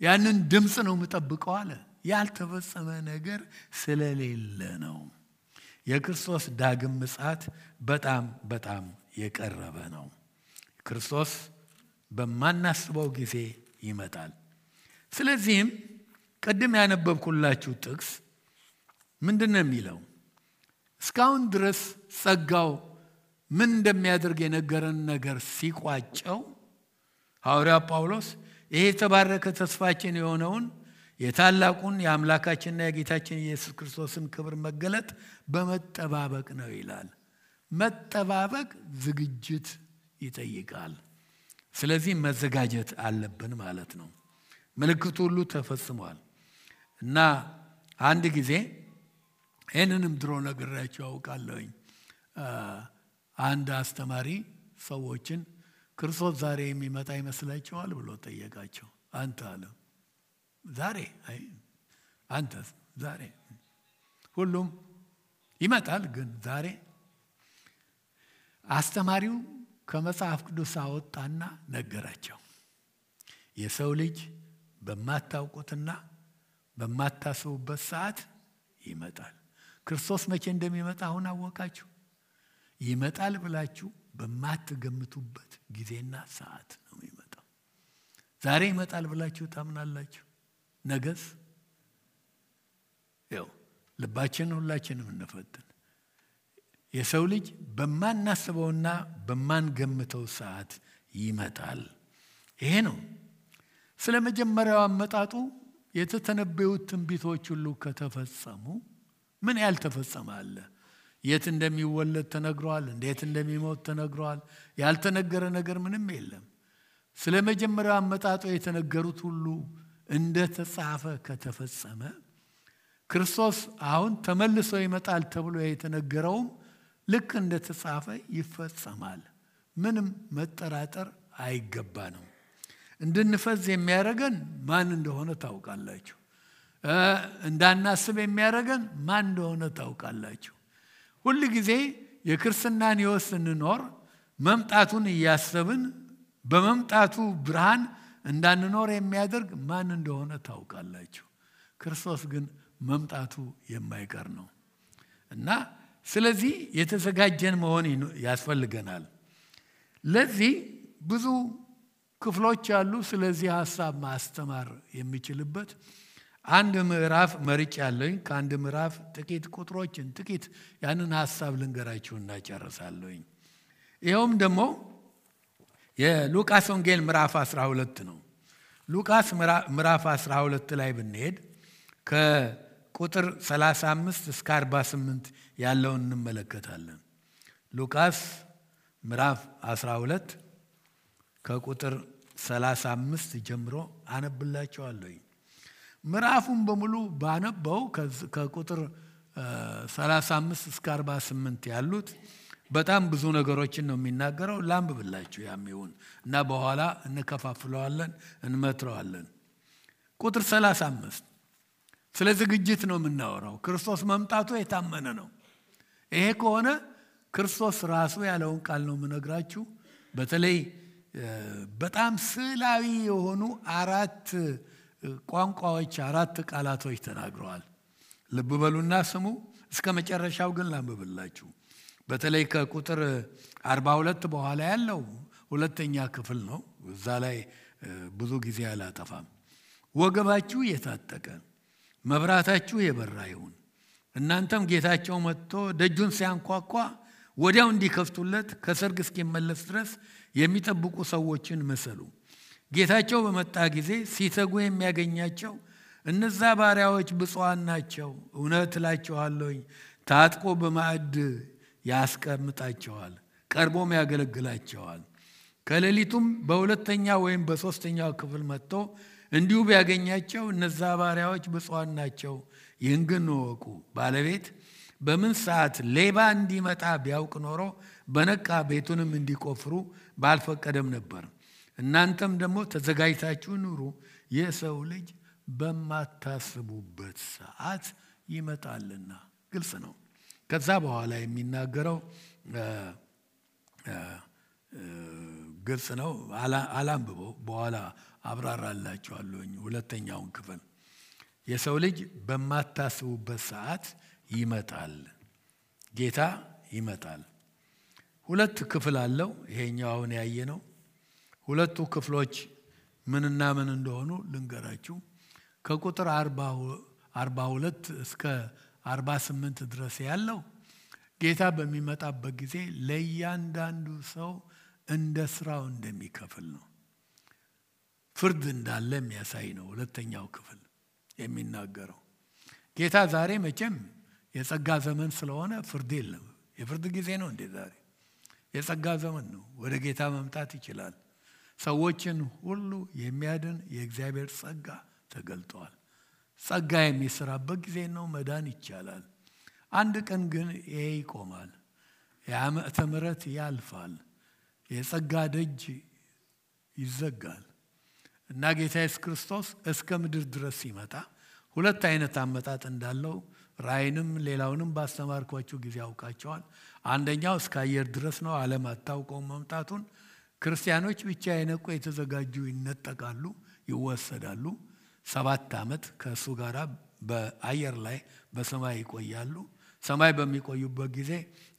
ያንን ድምፅ ነው የምጠብቀው አለ። ያልተፈጸመ ነገር ስለሌለ ነው። የክርስቶስ ዳግም ምጽአት በጣም በጣም የቀረበ ነው። ክርስቶስ በማናስበው ጊዜ ይመጣል። ስለዚህም ቀደም ያነበብኩላችሁ ጥቅስ ምንድነው የሚለው? እስካሁን ድረስ ጸጋው ምን እንደሚያደርግ የነገረን ነገር ሲቋጨው ሐዋርያ ጳውሎስ ይሄ የተባረከ ተስፋችን የሆነውን የታላቁን የአምላካችንና የጌታችን ኢየሱስ ክርስቶስን ክብር መገለጥ በመጠባበቅ ነው ይላል። መጠባበቅ ዝግጅት ይጠይቃል። ስለዚህ መዘጋጀት አለብን ማለት ነው። ምልክቱ ሁሉ ተፈጽሟል እና አንድ ጊዜ ይህንንም ድሮ ነግሬያቸው አውቃለሁኝ። አንድ አስተማሪ ሰዎችን ክርስቶስ ዛሬ የሚመጣ ይመስላችኋል ብሎ ጠየቃቸው። አንተ አለ ዛሬ? አይ አንተ ዛሬ? ሁሉም ይመጣል ግን ዛሬ? አስተማሪው ከመጽሐፍ ቅዱስ አወጣና ነገራቸው። የሰው ልጅ በማታውቁትና በማታስቡበት ሰዓት ይመጣል። ክርስቶስ መቼ እንደሚመጣ አሁን አወቃችሁ? ይመጣል ብላችሁ በማትገምቱበት ጊዜና ሰዓት ነው የሚመጣው። ዛሬ ይመጣል ብላችሁ ታምናላችሁ? ነገስ? ያው ልባችንን ሁላችንም እንፈትን። የሰው ልጅ በማናስበውና በማንገምተው ሰዓት ይመጣል። ይሄ ነው። ስለ መጀመሪያው አመጣጡ የተተነበዩት ትንቢቶች ሁሉ ከተፈጸሙ ምን ያልተፈጸመ አለ? የት እንደሚወለድ ተነግሯል። እንዴት እንደሚሞት ተነግሯል። ያልተነገረ ነገር ምንም የለም። ስለ መጀመሪያው አመጣጡ የተነገሩት ሁሉ እንደተጻፈ ከተፈጸመ ክርስቶስ አሁን ተመልሶ ይመጣል ተብሎ የተነገረውም ልክ እንደተጻፈ ይፈጸማል። ምንም መጠራጠር አይገባንም። እንድንፈዝ የሚያደርገን ማን እንደሆነ ታውቃላችሁ። እንዳናስብ የሚያደርገን ማን እንደሆነ ታውቃላችሁ። ሁል ጊዜ የክርስትናን ሕይወት ስንኖር መምጣቱን እያሰብን በመምጣቱ ብርሃን እንዳንኖር የሚያደርግ ማን እንደሆነ ታውቃላችሁ። ክርስቶስ ግን መምጣቱ የማይቀር ነው እና ስለዚህ የተዘጋጀን መሆን ያስፈልገናል። ለዚህ ብዙ ክፍሎች አሉ። ስለዚህ ሐሳብ ማስተማር የሚችልበት አንድ ምዕራፍ መርጬ ያለኝ ከአንድ ምዕራፍ ጥቂት ቁጥሮችን ጥቂት ያንን ሐሳብ ልንገራችሁና ጨርሳለሁኝ። ይኸውም ደግሞ የሉቃስ ወንጌል ምዕራፍ 12 ነው። ሉቃስ ምዕራፍ 12 ላይ ብንሄድ ከቁጥር 35 እስከ 48 ያለውን እንመለከታለን። ሉቃስ ምዕራፍ 12 ከቁጥር 35 ጀምሮ አነብላችኋለሁ። ምዕራፉን በሙሉ ባነበው ከቁጥር 35 እስከ 48 ያሉት በጣም ብዙ ነገሮችን ነው የሚናገረው። ላንብብላችሁ ያሚውን እና በኋላ እንከፋፍለዋለን፣ እንመትረዋለን። ቁጥር 35 ስለ ዝግጅት ነው የምናወራው። ክርስቶስ መምጣቱ የታመነ ነው። ይሄ ከሆነ ክርስቶስ ራሱ ያለውን ቃል ነው የምነግራችሁ። በተለይ በጣም ስዕላዊ የሆኑ 4 ቋንቋዎች 4 ቃላቶች ተናግረዋል። ልብ በሉና ስሙ። እስከ መጨረሻው ግን ላንብብላችሁ። በተለይ ከቁጥር 42 በኋላ ያለው ሁለተኛ ክፍል ነው። እዛ ላይ ብዙ ጊዜ አላጠፋም። ወገባችሁ የታጠቀ መብራታችሁ የበራ ይሁን። እናንተም ጌታቸው መጥቶ ደጁን ሲያንኳኳ ወዲያው እንዲከፍቱለት ከሰርግ እስኪመለስ ድረስ የሚጠብቁ ሰዎችን መሰሉ። ጌታቸው በመጣ ጊዜ ሲተጉ የሚያገኛቸው እነዛ ባሪያዎች ብፁዓን ናቸው። እውነት እላችኋለሁ ታጥቆ በማዕድ ያስቀምጣቸዋል፣ ቀርቦም ያገለግላቸዋል። ከሌሊቱም በሁለተኛ ወይም በሶስተኛው ክፍል መጥቶ እንዲሁ ቢያገኛቸው እነዛ ባሪያዎች ብፁዓን ናቸው። ይህን ግን እወቁ፣ ባለቤት በምን ሰዓት ሌባ እንዲመጣ ቢያውቅ ኖሮ በነቃ ቤቱንም እንዲቆፍሩ ባልፈቀደም ነበር። እናንተም ደግሞ ተዘጋጅታችሁ ኑሩ፣ የሰው ልጅ በማታስቡበት ሰዓት ይመጣልና። ግልጽ ነው። ከዛ በኋላ የሚናገረው ግልጽ ነው። አላንብበው፣ በኋላ አብራራላችኋለሁኝ። ሁለተኛውን ክፍል የሰው ልጅ በማታስቡበት ሰዓት ይመጣል። ጌታ ይመጣል። 2 ክፍል አለው። ይሄኛው አሁን ያየነው ሁለቱ ክፍሎች ምንና ምን እንደሆኑ ልንገራችሁ። ከቁጥር 42 እስከ 48 ድረስ ያለው ጌታ በሚመጣበት ጊዜ ለእያንዳንዱ ሰው እንደ ስራው እንደሚከፍል ነው። ፍርድ እንዳለ የሚያሳይ ነው። ሁለተኛው ክፍል የሚናገረው ጌታ ዛሬ መቼም የጸጋ ዘመን ስለሆነ ፍርድ የለም። የፍርድ ጊዜ ነው እንዴ? ዛሬ የጸጋ ዘመን ነው። ወደ ጌታ መምጣት ይችላል። ሰዎችን ሁሉ የሚያድን የእግዚአብሔር ጸጋ ተገልጧል። ጸጋ የሚሰራበት ጊዜ ነው። መዳን ይቻላል። አንድ ቀን ግን ይሄ ይቆማል። የዓመተ ምሕረት ያልፋል። የጸጋ ደጅ ይዘጋል እና ጌታ ኢየሱስ ክርስቶስ እስከ ምድር ድረስ ሲመጣ 2 አይነት አመጣጥ እንዳለው ራእይንም ሌላውንም ባስተማርኳችሁ ጊዜ አውቃቸዋል። አንደኛው እስከ አየር ድረስ ነው። ዓለም አታውቀውም መምጣቱን። ክርስቲያኖች ብቻ የነቁ የተዘጋጁ ይነጠቃሉ፣ ይወሰዳሉ። 7 ዓመት ከእሱ ጋር በአየር ላይ በሰማይ ይቆያሉ። ሰማይ በሚቆዩበት ጊዜ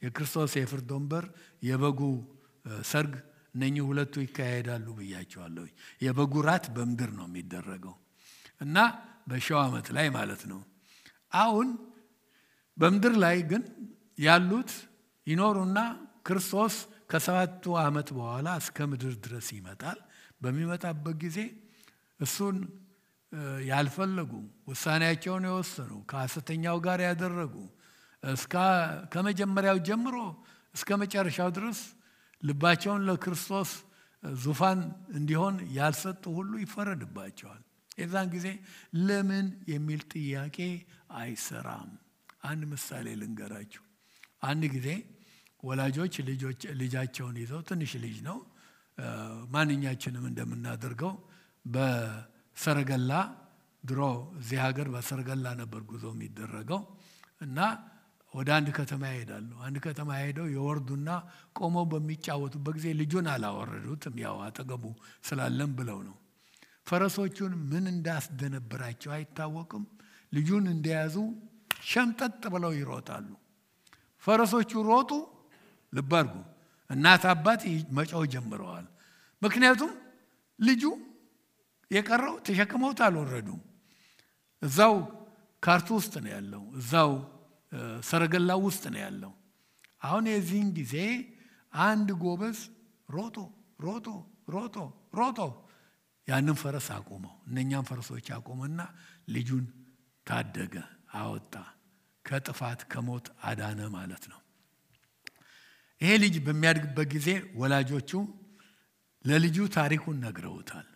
የክርስቶስ የፍርድ ወንበር፣ የበጉ ሰርግ እነኚህ ሁለቱ ይካሄዳሉ ብያቸዋለሁ። የበጉ ራት በምድር ነው የሚደረገው እና በ1000 ዓመት ላይ ማለት ነው። አሁን በምድር ላይ ግን ያሉት ይኖሩና ክርስቶስ ከ7 ዓመት በኋላ እስከ ምድር ድረስ ይመጣል። በሚመጣበት ጊዜ እሱን ያልፈለጉ ውሳኔያቸውን የወሰኑ ከሐሰተኛው ጋር ያደረጉ ከመጀመሪያው ጀምሮ እስከ መጨረሻው ድረስ ልባቸውን ለክርስቶስ ዙፋን እንዲሆን ያልሰጡ ሁሉ ይፈረድባቸዋል። የዛን ጊዜ ለምን የሚል ጥያቄ አይሰራም። አንድ ምሳሌ ልንገራችሁ። አንድ ጊዜ ወላጆች ልጃቸውን ይዘው ትንሽ ልጅ ነው ማንኛችንም እንደምናደርገው በሰረገላ ድሮ እዚህ ሀገር በሰረገላ ነበር ጉዞ የሚደረገው እና ወደ አንድ ከተማ ይሄዳሉ። አንድ ከተማ ሄደው የወርዱና ቆመው በሚጫወቱበት ጊዜ ልጁን አላወረዱትም፣ ያው አጠገቡ ስላለም ብለው ነው። ፈረሶቹን ምን እንዳስደነበራቸው አይታወቅም። ልጁን እንደያዙ ሸምጠጥ ብለው ይሮጣሉ። ፈረሶቹ ሮጡ። ልብ አድርጉ፣ እናት አባት መጫው ጀምረዋል። ምክንያቱም ልጁ የቀረው ተሸክመውት አልወረዱም። እዛው ካርቱ ውስጥ ነው ያለው፣ እዛው ሰረገላው ውስጥ ነው ያለው። አሁን የዚህን ጊዜ አንድ ጎበዝ ሮጦ ሮጦ ሮጦ ሮጦ ያንን ፈረስ አቆመው። እነኛም ፈረሶች አቆመና ልጁን ታደገ፣ አወጣ፣ ከጥፋት ከሞት አዳነ ማለት ነው። ይሄ ልጅ በሚያድግበት ጊዜ ወላጆቹ ለልጁ ታሪኩን ነግረውታል።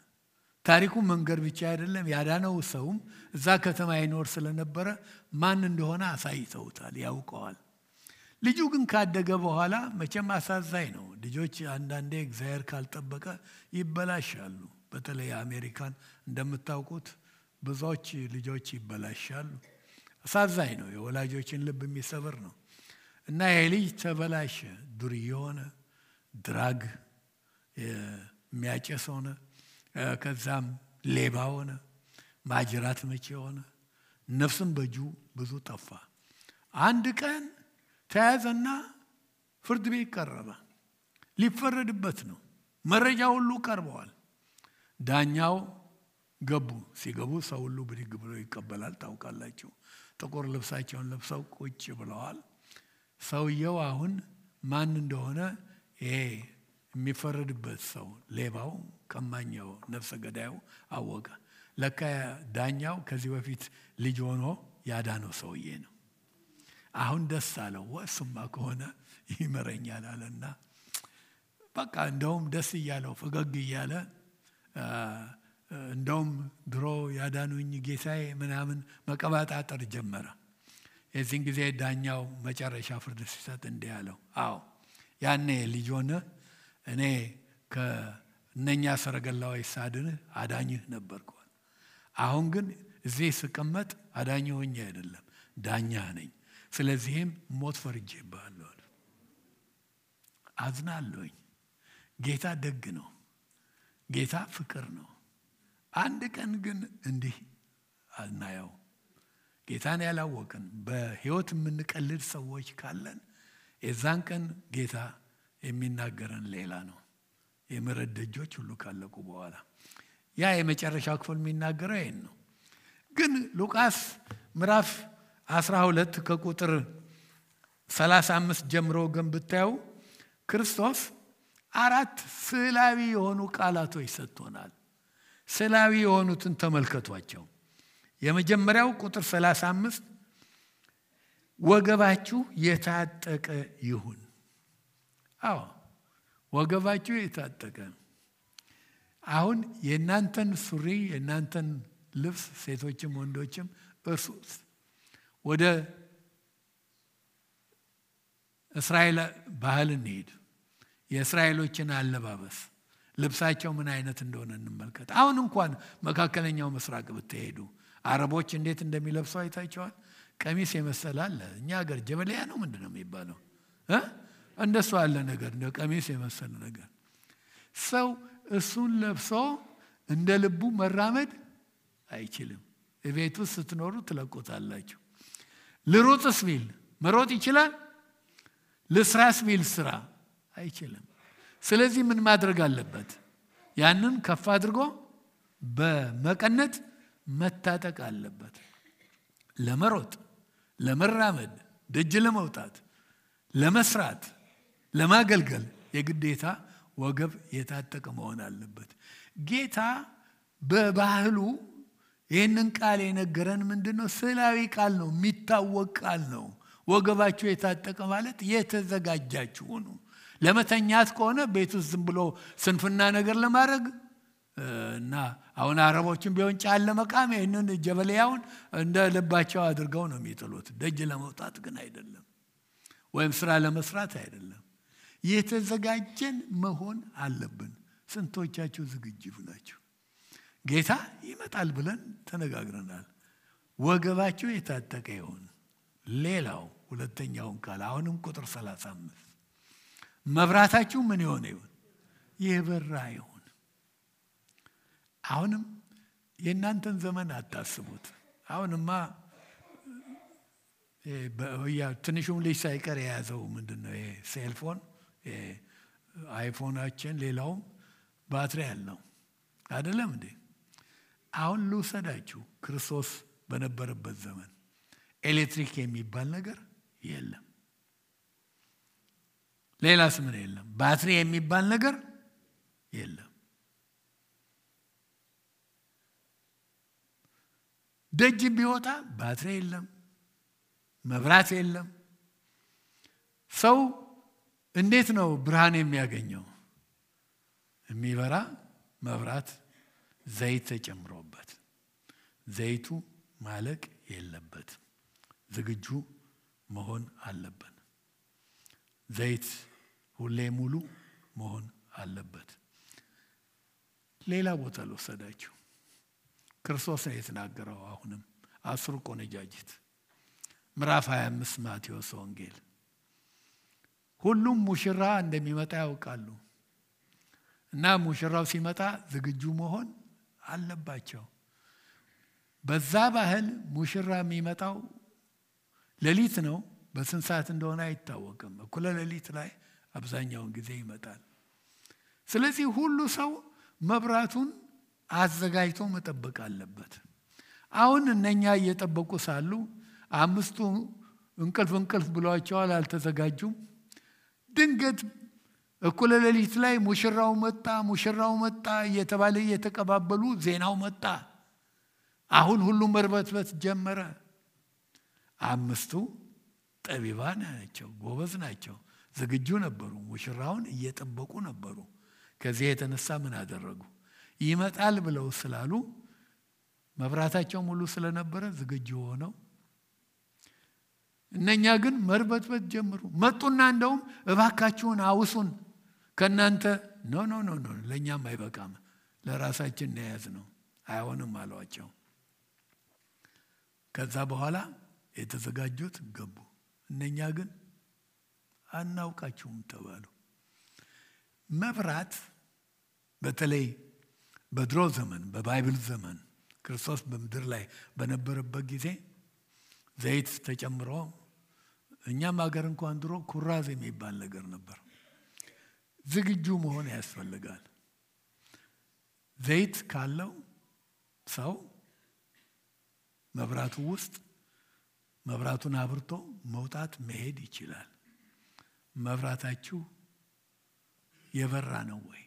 ታሪኩ መንገር ብቻ አይደለም፣ ያዳነው ሰውም እዛ ከተማ ይኖር ስለነበረ ማን እንደሆነ አሳይተውታል፣ ያውቀዋል። ልጁ ግን ካደገ በኋላ መቼም አሳዛኝ ነው። ልጆች አንዳንዴ እግዚአብሔር ካልጠበቀ ይበላሻሉ። በተለይ አሜሪካን እንደምታውቁት ብዙዎች ልጆች ይበላሻሉ። አሳዛኝ ነው፣ የወላጆችን ልብ የሚሰብር ነው። እና ይሄ ልጅ ተበላሸ፣ ዱርዬ ሆነ፣ ድራግ የሚያጨስ ሆነ፣ ከዛም ሌባ ሆነ፣ ማጅራት መቼ ሆነ፣ ነፍስም በእጁ ብዙ ጠፋ። አንድ ቀን ተያዘና ፍርድ ቤት ቀረበ። ሊፈረድበት ነው። መረጃ ሁሉ ቀርበዋል። ዳኛው ገቡ። ሲገቡ ሰው ሁሉ ብድግ ብሎ ይቀበላል። ታውቃላችሁ፣ ጥቁር ልብሳቸውን ለብሰው ቁጭ ብለዋል። ሰውየው አሁን ማን እንደሆነ ይሄ የሚፈረድበት ሰው ሌባው፣ ቀማኛው፣ ነፍሰ ገዳዩ አወቀ። ለካ ዳኛው ከዚህ በፊት ልጅ ሆኖ ያዳነው ሰውዬ ነው። አሁን ደስ አለው። ወስማ ከሆነ ይመረኛል አለና በቃ እንደውም ደስ እያለው ፈገግ እያለ እንደውም ድሮ ያዳኑኝ ጌታዬ ምናምን መቀባጣጠር ጀመረ። የዚህን ጊዜ ዳኛው መጨረሻ ፍርድ ሲሰጥ እንዲህ አለው፣ አዎ ያኔ ልጅ ሆነ እኔ ከእነኛ ሰረገላዎች ሳድንህ አዳኝህ ነበርኩ። አሁን ግን እዚህ ስቀመጥ አዳኝ ሆኜ አይደለም ዳኛ ነኝ። ስለዚህም ሞት ፈርጄብሃለሁ። አዝናለሁኝ። ጌታ ደግ ነው። ጌታ ፍቅር ነው። አንድ ቀን ግን እንዲህ አናየው። ጌታን ያላወቅን በህይወት የምንቀልድ ሰዎች ካለን የዛን ቀን ጌታ የሚናገረን ሌላ ነው። የምሕረት ደጆች ሁሉ ካለቁ በኋላ ያ የመጨረሻው ክፍል የሚናገረው ይሄን ነው። ግን ሉቃስ ምዕራፍ 12 ከቁጥር 35 ጀምሮ ግን ብታዩ ክርስቶስ 4 ስዕላዊ የሆኑ ቃላቶች ሰጥቶናል። ስዕላዊ የሆኑትን ተመልከቷቸው። የመጀመሪያው ቁጥር 35 ወገባችሁ የታጠቀ ይሁን። አዎ ወገባችሁ የታጠቀ። አሁን የእናንተን ሱሪ የእናንተን ልብስ ሴቶችም ወንዶችም እርሱት። ወደ እስራኤል ባህል እንሄድ። የእስራኤሎችን አለባበስ ልብሳቸው ምን አይነት እንደሆነ እንመልከት። አሁን እንኳን መካከለኛው ምስራቅ ብትሄዱ አረቦች እንዴት እንደሚለብሱ አይታቸዋል። ቀሚስ የመሰለ አለ። እኛ ሀገር ጀበሊያ ነው ምንድነው የሚባለው? እንደሱ አለ ነገር፣ እንደ ቀሚስ የመሰለ ነገር። ሰው እሱን ለብሶ እንደ ልቡ መራመድ አይችልም። ቤት ውስጥ ስትኖሩ ትለቁታላችሁ። ልሩጥስ ቢል መሮጥ ይችላል? ልስራስ ቢል ስራ አይችልም። ስለዚህ ምን ማድረግ አለበት? ያንን ከፍ አድርጎ በመቀነት መታጠቅ አለበት። ለመሮጥ፣ ለመራመድ፣ ደጅ ለመውጣት፣ ለመስራት፣ ለማገልገል የግዴታ ወገብ የታጠቀ መሆን አለበት። ጌታ በባህሉ ይህንን ቃል የነገረን ምንድነው? ስዕላዊ ቃል ነው፣ የሚታወቅ ቃል ነው። ወገባችሁ የታጠቀ ማለት የተዘጋጃችሁ ነው። ለመተኛት ከሆነ ቤት ውስጥ ዝም ብሎ ስንፍና ነገር ለማድረግ እና አሁን አረቦችን ቢሆን ጫል ለመቃም ይህንን ጀበልያውን እንደ ልባቸው አድርገው ነው የሚጥሉት። ደጅ ለመውጣት ግን አይደለም፣ ወይም ስራ ለመስራት አይደለም። የተዘጋጀን መሆን አለብን። ስንቶቻችሁ ዝግጁ ናችሁ? ጌታ ይመጣል ብለን ተነጋግረናል። ወገባችሁ የታጠቀ ይሁን። ሌላው ሁለተኛውን ቃል አሁንም ቁጥር 35 መብራታችሁ ምን ይሆን ይሁን? የበራ ይሁን። አሁንም የእናንተን ዘመን አታስቡት። አሁንማ ትንሹም ልጅ ሳይቀር የያዘው ምንድነው? ይሄ ሴልፎን አይፎናችን ሌላውም ባትሪ ያለው አይደለም እንዴ? አሁን ልውሰዳችሁ። ክርስቶስ በነበረበት ዘመን ኤሌክትሪክ የሚባል ነገር የለም። ሌላስ ምን የለም? ባትሪ የሚባል ነገር የለም። ደጅ ቢወጣ ባትሪ የለም፣ መብራት የለም። ሰው እንዴት ነው ብርሃን የሚያገኘው? የሚበራ መብራት ዘይት ተጨምሮበት። ዘይቱ ማለቅ የለበት፣ ዝግጁ መሆን አለበት። ዘይት ሁሌ ሙሉ መሆን አለበት። ሌላ ቦታ ልወሰዳችሁ። ክርስቶስ ነው የተናገረው። አሁንም 10 ቆነጃጅት ምዕራፍ 25 ማቴዎስ ወንጌል። ሁሉም ሙሽራ እንደሚመጣ ያውቃሉ እና ሙሽራው ሲመጣ ዝግጁ መሆን አለባቸው። በዛ ባህል ሙሽራ የሚመጣው ሌሊት ነው። በስንት ሰዓት እንደሆነ አይታወቅም። እኩለ ሌሊት ላይ አብዛኛውን ጊዜ ይመጣል። ስለዚህ ሁሉ ሰው መብራቱን አዘጋጅቶ መጠበቅ አለበት። አሁን እነኛ እየጠበቁ ሳሉ 5ቱ እንቅልፍ ብሏቸዋል፣ አልተዘጋጁም። ድንገት እኩለ ሌሊት ላይ ሙሽራው መጣ እየተባለ እየተቀባበሉ ዜናው መጣ። አሁን ሁሉም መርበትበት ጀመረ። 5ቱ ጠቢባን ናቸው፣ ጎበዝ ናቸው፣ ዝግጁ ነበሩ፣ ሙሽራውን እየጠበቁ ነበሩ። ከዚህ የተነሳ ምን አደረጉ? ይመጣል ብለው ስላሉ መብራታቸው ሙሉ ስለነበረ ዝግጁ ሆነው፣ እነኛ ግን መርበትበት ጀመሩ። መጡና እንደውም እባካችሁን አውሱን፣ ከናንተ ኖ ለኛም አይበቃም፣ ለራሳችን ነያዝ ነው፣ አይሆንም አሏቸው። ከዛ በኋላ የተዘጋጁት ገቡ። እነኛ ግን አናውቃችሁም ተባሉ። መብራት በተለይ በድሮ ዘመን በባይብል ዘመን ክርስቶስ በምድር ላይ በነበረበት ጊዜ ዘይት ተጨምሮ፣ እኛም ሀገር እንኳን ድሮ ኩራዝ የሚባል ነገር ነበር። ዝግጁ መሆን ያስፈልጋል። ዘይት ካለው ሰው መብራቱ ውስጥ መብራቱን አብርቶ መውጣት መሄድ ይችላል። መብራታችሁ የበራ ነው ወይ?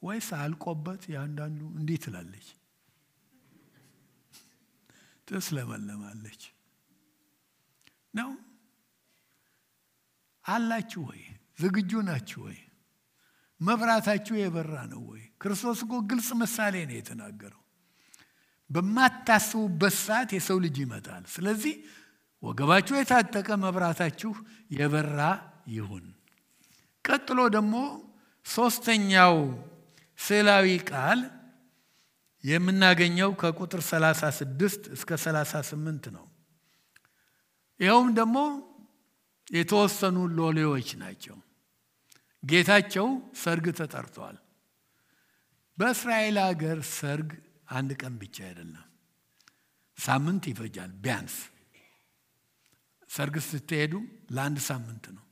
ወይስ አልቆበት ያንዳንዱ እንዴት ትላለች ተስለመለማለች ነው? አላችሁ ወይ? ዝግጁ ናችሁ ወይ? መብራታችሁ የበራ ነው ወይ? ክርስቶስ እኮ ግልጽ ምሳሌ ነው የተናገረው። በማታስቡበት ሰዓት የሰው ልጅ ይመጣል። ስለዚህ ወገባችሁ የታጠቀ መብራታችሁ የበራ ይሁን። ቀጥሎ ደግሞ ሶስተኛው ስዕላዊ ቃል የምናገኘው ከቁጥር 36 እስከ 38 ነው። ይኸውም ደግሞ የተወሰኑ ሎሌዎች ናቸው። ጌታቸው ሰርግ ተጠርቷል። በእስራኤል ሀገር ሰርግ አንድ ቀን ብቻ አይደለም፣ ሳምንት ይፈጃል። ቢያንስ ሰርግ ስትሄዱ ለአንድ ሳምንት ነው።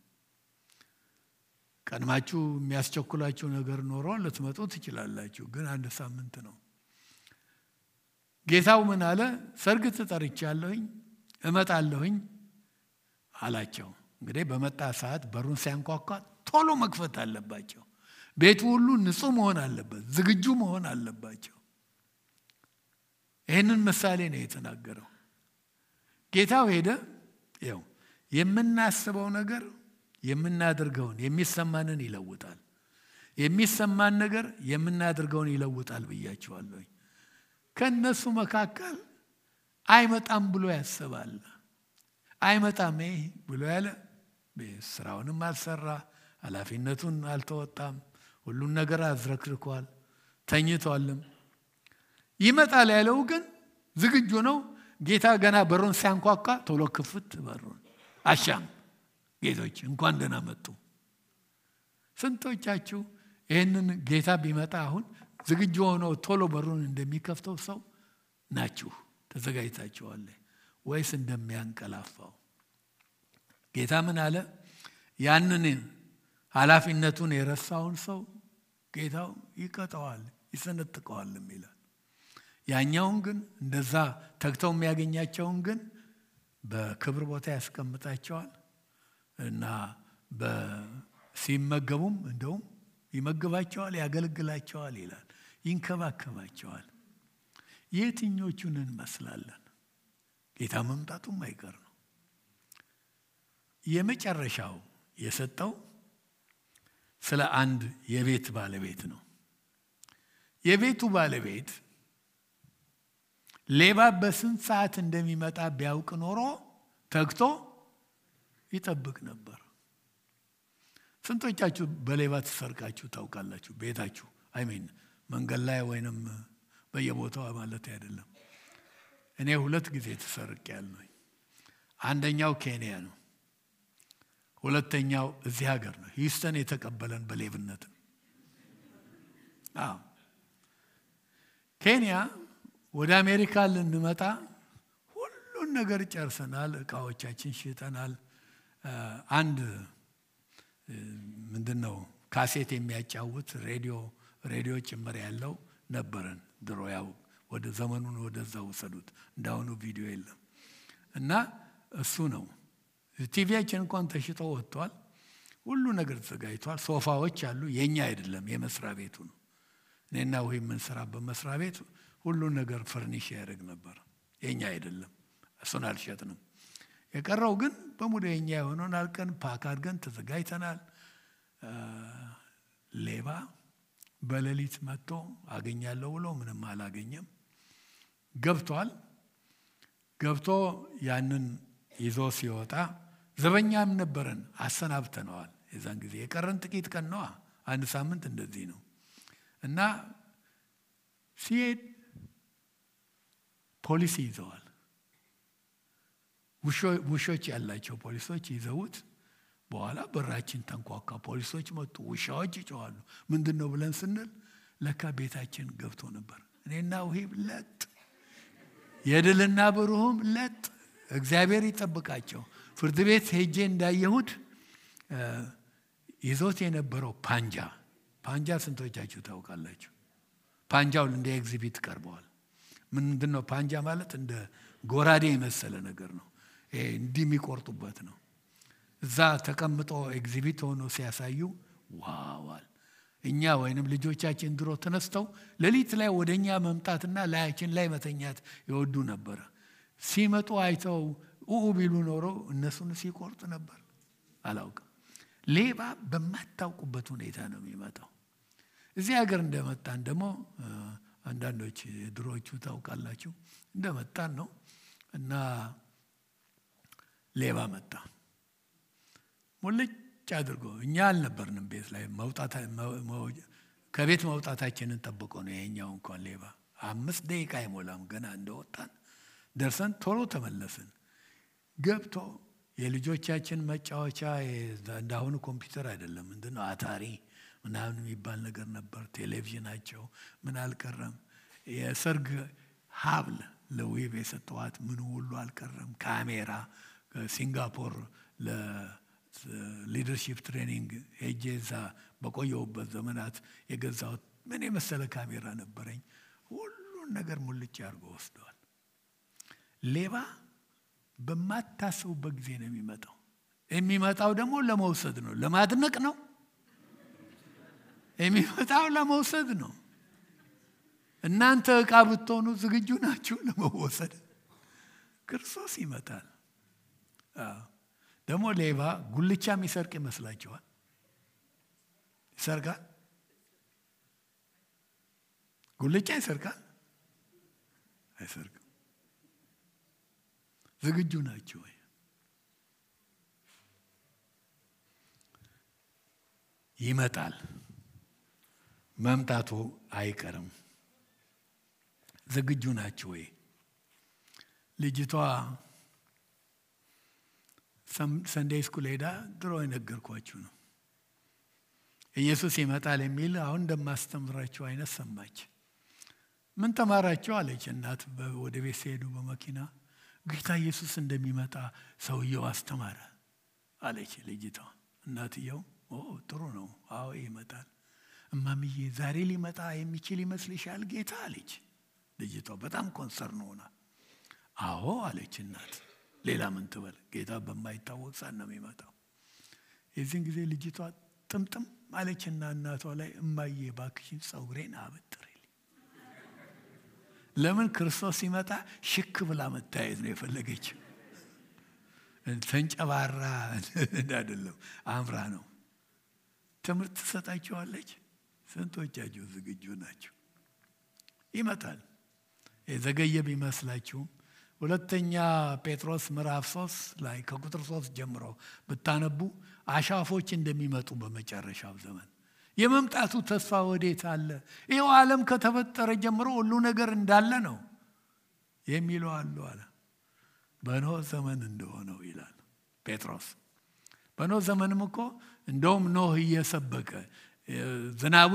ቀድማችሁ የሚያስቸኩላችሁ ነገር ኖሮ ልትመጡ ትችላላችሁ፣ ግን አንድ ሳምንት ነው። ጌታው ምን አለ? ሰርግ ተጠርቻለሁኝ እመጣለሁኝ አላቸው። እንግዲህ በመጣ ሰዓት በሩን ሲያንኳኳ ቶሎ መክፈት አለባቸው። ቤቱ ሁሉ ንጹህ መሆን አለበት፣ ዝግጁ መሆን አለባቸው። ይህንን ምሳሌ ነው የተናገረው። ጌታው ሄደ። ይኸው የምናስበው ነገር የምናደርገውን የሚሰማንን ይለውጣል። የሚሰማን ነገር የምናደርገውን ይለውጣል ብያቸዋለሁ። ከነሱ መካከል አይመጣም ብሎ ያስባል። አይመጣም ብሎ ያለ ስራውንም አልሰራ፣ ኃላፊነቱን አልተወጣም፣ ሁሉን ነገር አዝረክርኳል፣ ተኝቷልም። ይመጣል ያለው ግን ዝግጁ ነው። ጌታ ገና በሩን ሲያንኳኳ ቶሎ ክፍት በሩን አሻም ጌቶች እንኳን ደህና መጡ። ስንቶቻችሁ ይህንን ጌታ ቢመጣ አሁን ዝግጁ ሆኖ ቶሎ በሩን እንደሚከፍተው ሰው ናችሁ? ተዘጋጅታችኋል ወይስ እንደሚያንቀላፋው? ጌታ ምን አለ? ያንን ኃላፊነቱን የረሳውን ሰው ጌታው ይቀጣዋል፣ ይሰነጥቀዋልም ይላል። ያኛውን ግን እንደዛ ተግተው የሚያገኛቸውን ግን በክብር ቦታ ያስቀምጣቸዋል እና ሲመገቡም እንደውም ይመግባቸዋል፣ ያገለግላቸዋል ይላል፣ ይንከባከባቸዋል። የትኞቹን እንመስላለን? ጌታ መምጣቱም አይቀር ነው። የመጨረሻው የሰጠው ስለ አንድ የቤት ባለቤት ነው። የቤቱ ባለቤት ሌባ በስንት ሰዓት እንደሚመጣ ቢያውቅ ኖሮ ተግቶ ይጠብቅ ነበር። ስንቶቻችሁ በሌባ ተሰርቃችሁ ታውቃላችሁ? ቤታችሁ አይሜን መንገድ ላይ ወይንም በየቦታው ማለት አይደለም። እኔ 2 ጊዜ ተሰርቄያለሁ። አንደኛው ኬንያ ነው፣ ሁለተኛው እዚህ ሀገር ነው። ሂውስተን የተቀበለን በሌብነት ነው። ኬንያ ወደ አሜሪካ ልንመጣ ሁሉን ነገር ጨርሰናል፣ እቃዎቻችን ሽጠናል። አንድ ምንድነው ካሴት የሚያጫውት ሬዲዮ ጭምር ያለው ነበረን ድሮ። ያው ወደ ዘመኑን ወደዛ ወሰዱት፣ እንዳሁኑ ቪዲዮ የለም እና እሱ ነው። ቲቪያችን እንኳን ተሽጦ ወጥቷል። ሁሉ ነገር ተዘጋጅቷል። ሶፋዎች አሉ፣ የኛ አይደለም የመስሪያ ቤቱ ነው። እኔና ወይ ምን ስራ በመስሪያ ቤት ሁሉ ነገር ፈርኒሽ ያደርግ ነበር፣ የኛ አይደለም። እሱን አልሸጥንም። የቀረው ግን በሙሉ የኛ የሆነውን አልቀን ፓክ አድርገን ተዘጋጅተናል። ሌባ በሌሊት መጥቶ አገኛለሁ ብሎ ምንም አላገኘም። ገብቶ ያንን ይዞ ሲወጣ ዘበኛም ነበረን፣ አሰናብተነዋል። የዛን ጊዜ የቀረን ጥቂት ቀን ነው፣ አንድ ሳምንት እንደዚህ ነው። እና ሲሄድ ፖሊስ ይዘዋል። ውሾች ያላቸው ፖሊሶች ይዘውት በኋላ በራችን ተንኳኳ። ፖሊሶች መጡ፣ ውሻዎች ይጮኻሉ። ምንድነው ብለን ስንል ለካ ቤታችን ገብቶ ነበር። እኔና ውሂብ ለጥ፣ የድልና ብሩህም ለጥ። እግዚአብሔር ይጠብቃቸው። ፍርድ ቤት ሄጄ እንዳየሁት ይዞት የነበረው ፓንጃ ስንቶቻችሁ ታውቃላችሁ? ፓንጃው እንደ ኤግዚቢት ቀርበዋል። ምንድነው ፓንጃ ማለት? እንደ ጎራዴ የመሰለ ነገር ነው። እንዲህ የሚቆርጡበት ነው። እዛ ተቀምጦ ኤግዚቢት ሆኖ ሲያሳዩ ዋዋል። እኛ ወይንም ልጆቻችን ድሮ ተነስተው ሌሊት ላይ ወደኛ መምጣትና ላያችን ላይ መተኛት ይወዱ ነበር። ሲመጡ አይተው ቢሉ ኖሮ እነሱን ሲቆርጥ ነበር። አላውቅም። ሌባ በማታውቁበት ሁኔታ ነው የሚመጣው። እዚህ ሀገር እንደመጣን ደግሞ አንዳንዶች ድሮቹ ታውቃላችሁ እንደመጣን ነው እና ሌባ መጣ። ሙልጭ አድርጎ እኛ አልነበርንም ቤት ላይ ከቤት መውጣታችንን ጠብቆ ነው የኛው እንኳን ሌባ 5 ደቂቃ አይሞላም ገና እንደወጣን ደርሰን ቶሎ ተመለስን። ገብቶ የልጆቻችን መጫወቻ እንዳሁኑ ኮምፒውተር አይደለም። ምንድነው አታሪ ምናምን የሚባል ነገር ነበር። ቴሌቪዥናቸው ምን አልቀረም። የሰርግ ሀብል ለዌብ የሰጠዋት ምን ሁሉ አልቀረም። ካሜራ ሲንጋፖር ለሊደርሺፕ ትሬኒንግ ሄጄ እዛ በቆየሁበት ዘመናት የገዛሁት ምን የመሰለ ካሜራ ነበረኝ። ሁሉን ነገር ሙልጭ አድርጎ ወስደዋል። ሌባ በማታስቡበት ጊዜ ነው የሚመጣው። የሚመጣው ደግሞ ለመውሰድ ነው፣ ለማድነቅ ነው። የሚመጣው ለመውሰድ ነው። እናንተ ዕቃ ብትሆኑ ዝግጁ ናችሁ ለመወሰድ? ክርስቶስ ይመጣል። ደግሞ ሌባ ጉልቻ የሚሰርቅ ይመስላችኋል? ይሰርቃል? ጉልቻ ይሰርቃል? አይሰርቅም። ዝግጁ ናችሁ ወይ? ይመጣል። መምጣቱ አይቀርም። ዝግጁ ናችሁ ወይ? ልጅቷ ሰንዴይ ስኩል ሄዳ ድሮ የነገርኳችሁ ነው። ኢየሱስ ይመጣል የሚል አሁን እንደማስተምራችሁ አይነት ሰማች። ምን ተማራችሁ አለች እናት። ወደ ቤት ሲሄዱ በመኪና ጌታ ኢየሱስ እንደሚመጣ ሰውየው አስተማረ አለች ልጅቷ። እናትየው ጥሩ ነው፣ አዎ ይመጣል። እማምዬ ዛሬ ሊመጣ የሚችል ይመስልሻል ጌታ አለች ልጅቷ በጣም ኮንሰርን ሆና። አዎ አለች እናት። ሌላ ምን ትበል? ጌታ በማይታወቅ ሰዓት ነው የሚመጣው። የዚህን ጊዜ ልጅቷ ጥምጥም አለችና እናቷ ላይ እማዬ ባክሽን ፀጉሬን አበጥሪልኝ። ለምን? ክርስቶስ ሲመጣ ሽክ ብላ መታየት ነው የፈለገችው። ተንጨባራ አይደለም፣ አምራ ነው። ትምህርት ትሰጣቸዋለች። ስንቶቻችሁ ዝግጁ ናቸው? ይመጣል። የዘገየ ቢመስላችሁም ሁለተኛ ጴጥሮስ ምዕራፍ 3 ላይ ከቁጥር 3 ጀምሮ ብታነቡ አሻፎች እንደሚመጡ በመጨረሻው ዘመን የመምጣቱ ተስፋ ወዴት አለ? ይኸው ዓለም ከተፈጠረ ጀምሮ ሁሉ ነገር እንዳለ ነው የሚለው አለ። በኖህ ዘመን እንደሆነው ይላል ጴጥሮስ። በኖህ ዘመንም እኮ እንደውም ኖህ እየሰበከ ዝናቡ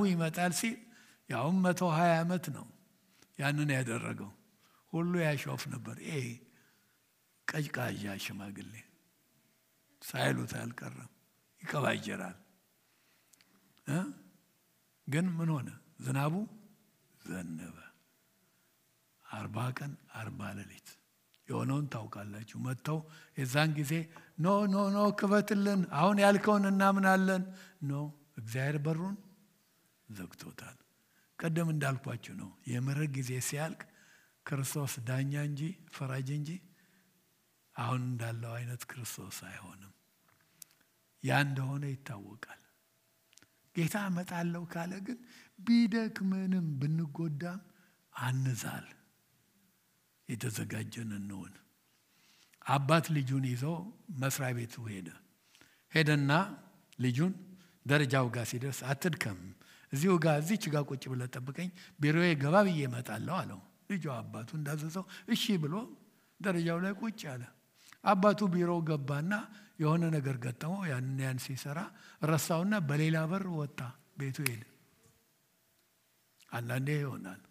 ይመጣል ሲል ያውም 120 ዓመት ነው ያንን ያደረገው። ሁሉ ያሾፍ ነበር። ቀጭቃዣ ሽማግሌ ሳይሉት አልቀረም፣ ይቀባጀራል። ግን ምን ሆነ? ዝናቡ ዘነበ። 40 ቀን 40 ሌሊት የሆነውን ታውቃላችሁ። መጥተው የዛን ጊዜ ኖ ክፈትልን፣ አሁን ያልከውን እናምናለን። እግዚአብሔር በሩን ዘግቶታል። ቀደም እንዳልኳችሁ ነው። የምሕረት ጊዜ ሲያልቅ ክርስቶስ ዳኛ እንጂ ፈራጅ እንጂ አሁን እንዳለው አይነት ክርስቶስ አይሆንም። ያ እንደሆነ ይታወቃል። ጌታ እመጣለሁ ካለ ግን ቢደክመንም ብንጎዳም አንዛል፣ የተዘጋጀን እንሆን። አባት ልጁን ይዞ መስሪያ ቤቱ ሄደና ልጁን ደረጃው ጋር ሲደርስ አትድከም፣ እዚች ጋር ቁጭ ብለህ ጠብቀኝ፣ ቢሮዬ ገባ ብዬ እመጣለሁ አለው። ልጁ አባቱ እንዳዘዘው እሺ ብሎ ደረጃው ላይ ቁጭ አለ። አባቱ ቢሮ ገባና የሆነ ነገር ገጠመው። ያን ሲሰራ ረሳውና በሌላ በር ወጣ፣ ቤቱ ሄደ። አንዳንዴ ይሆናል።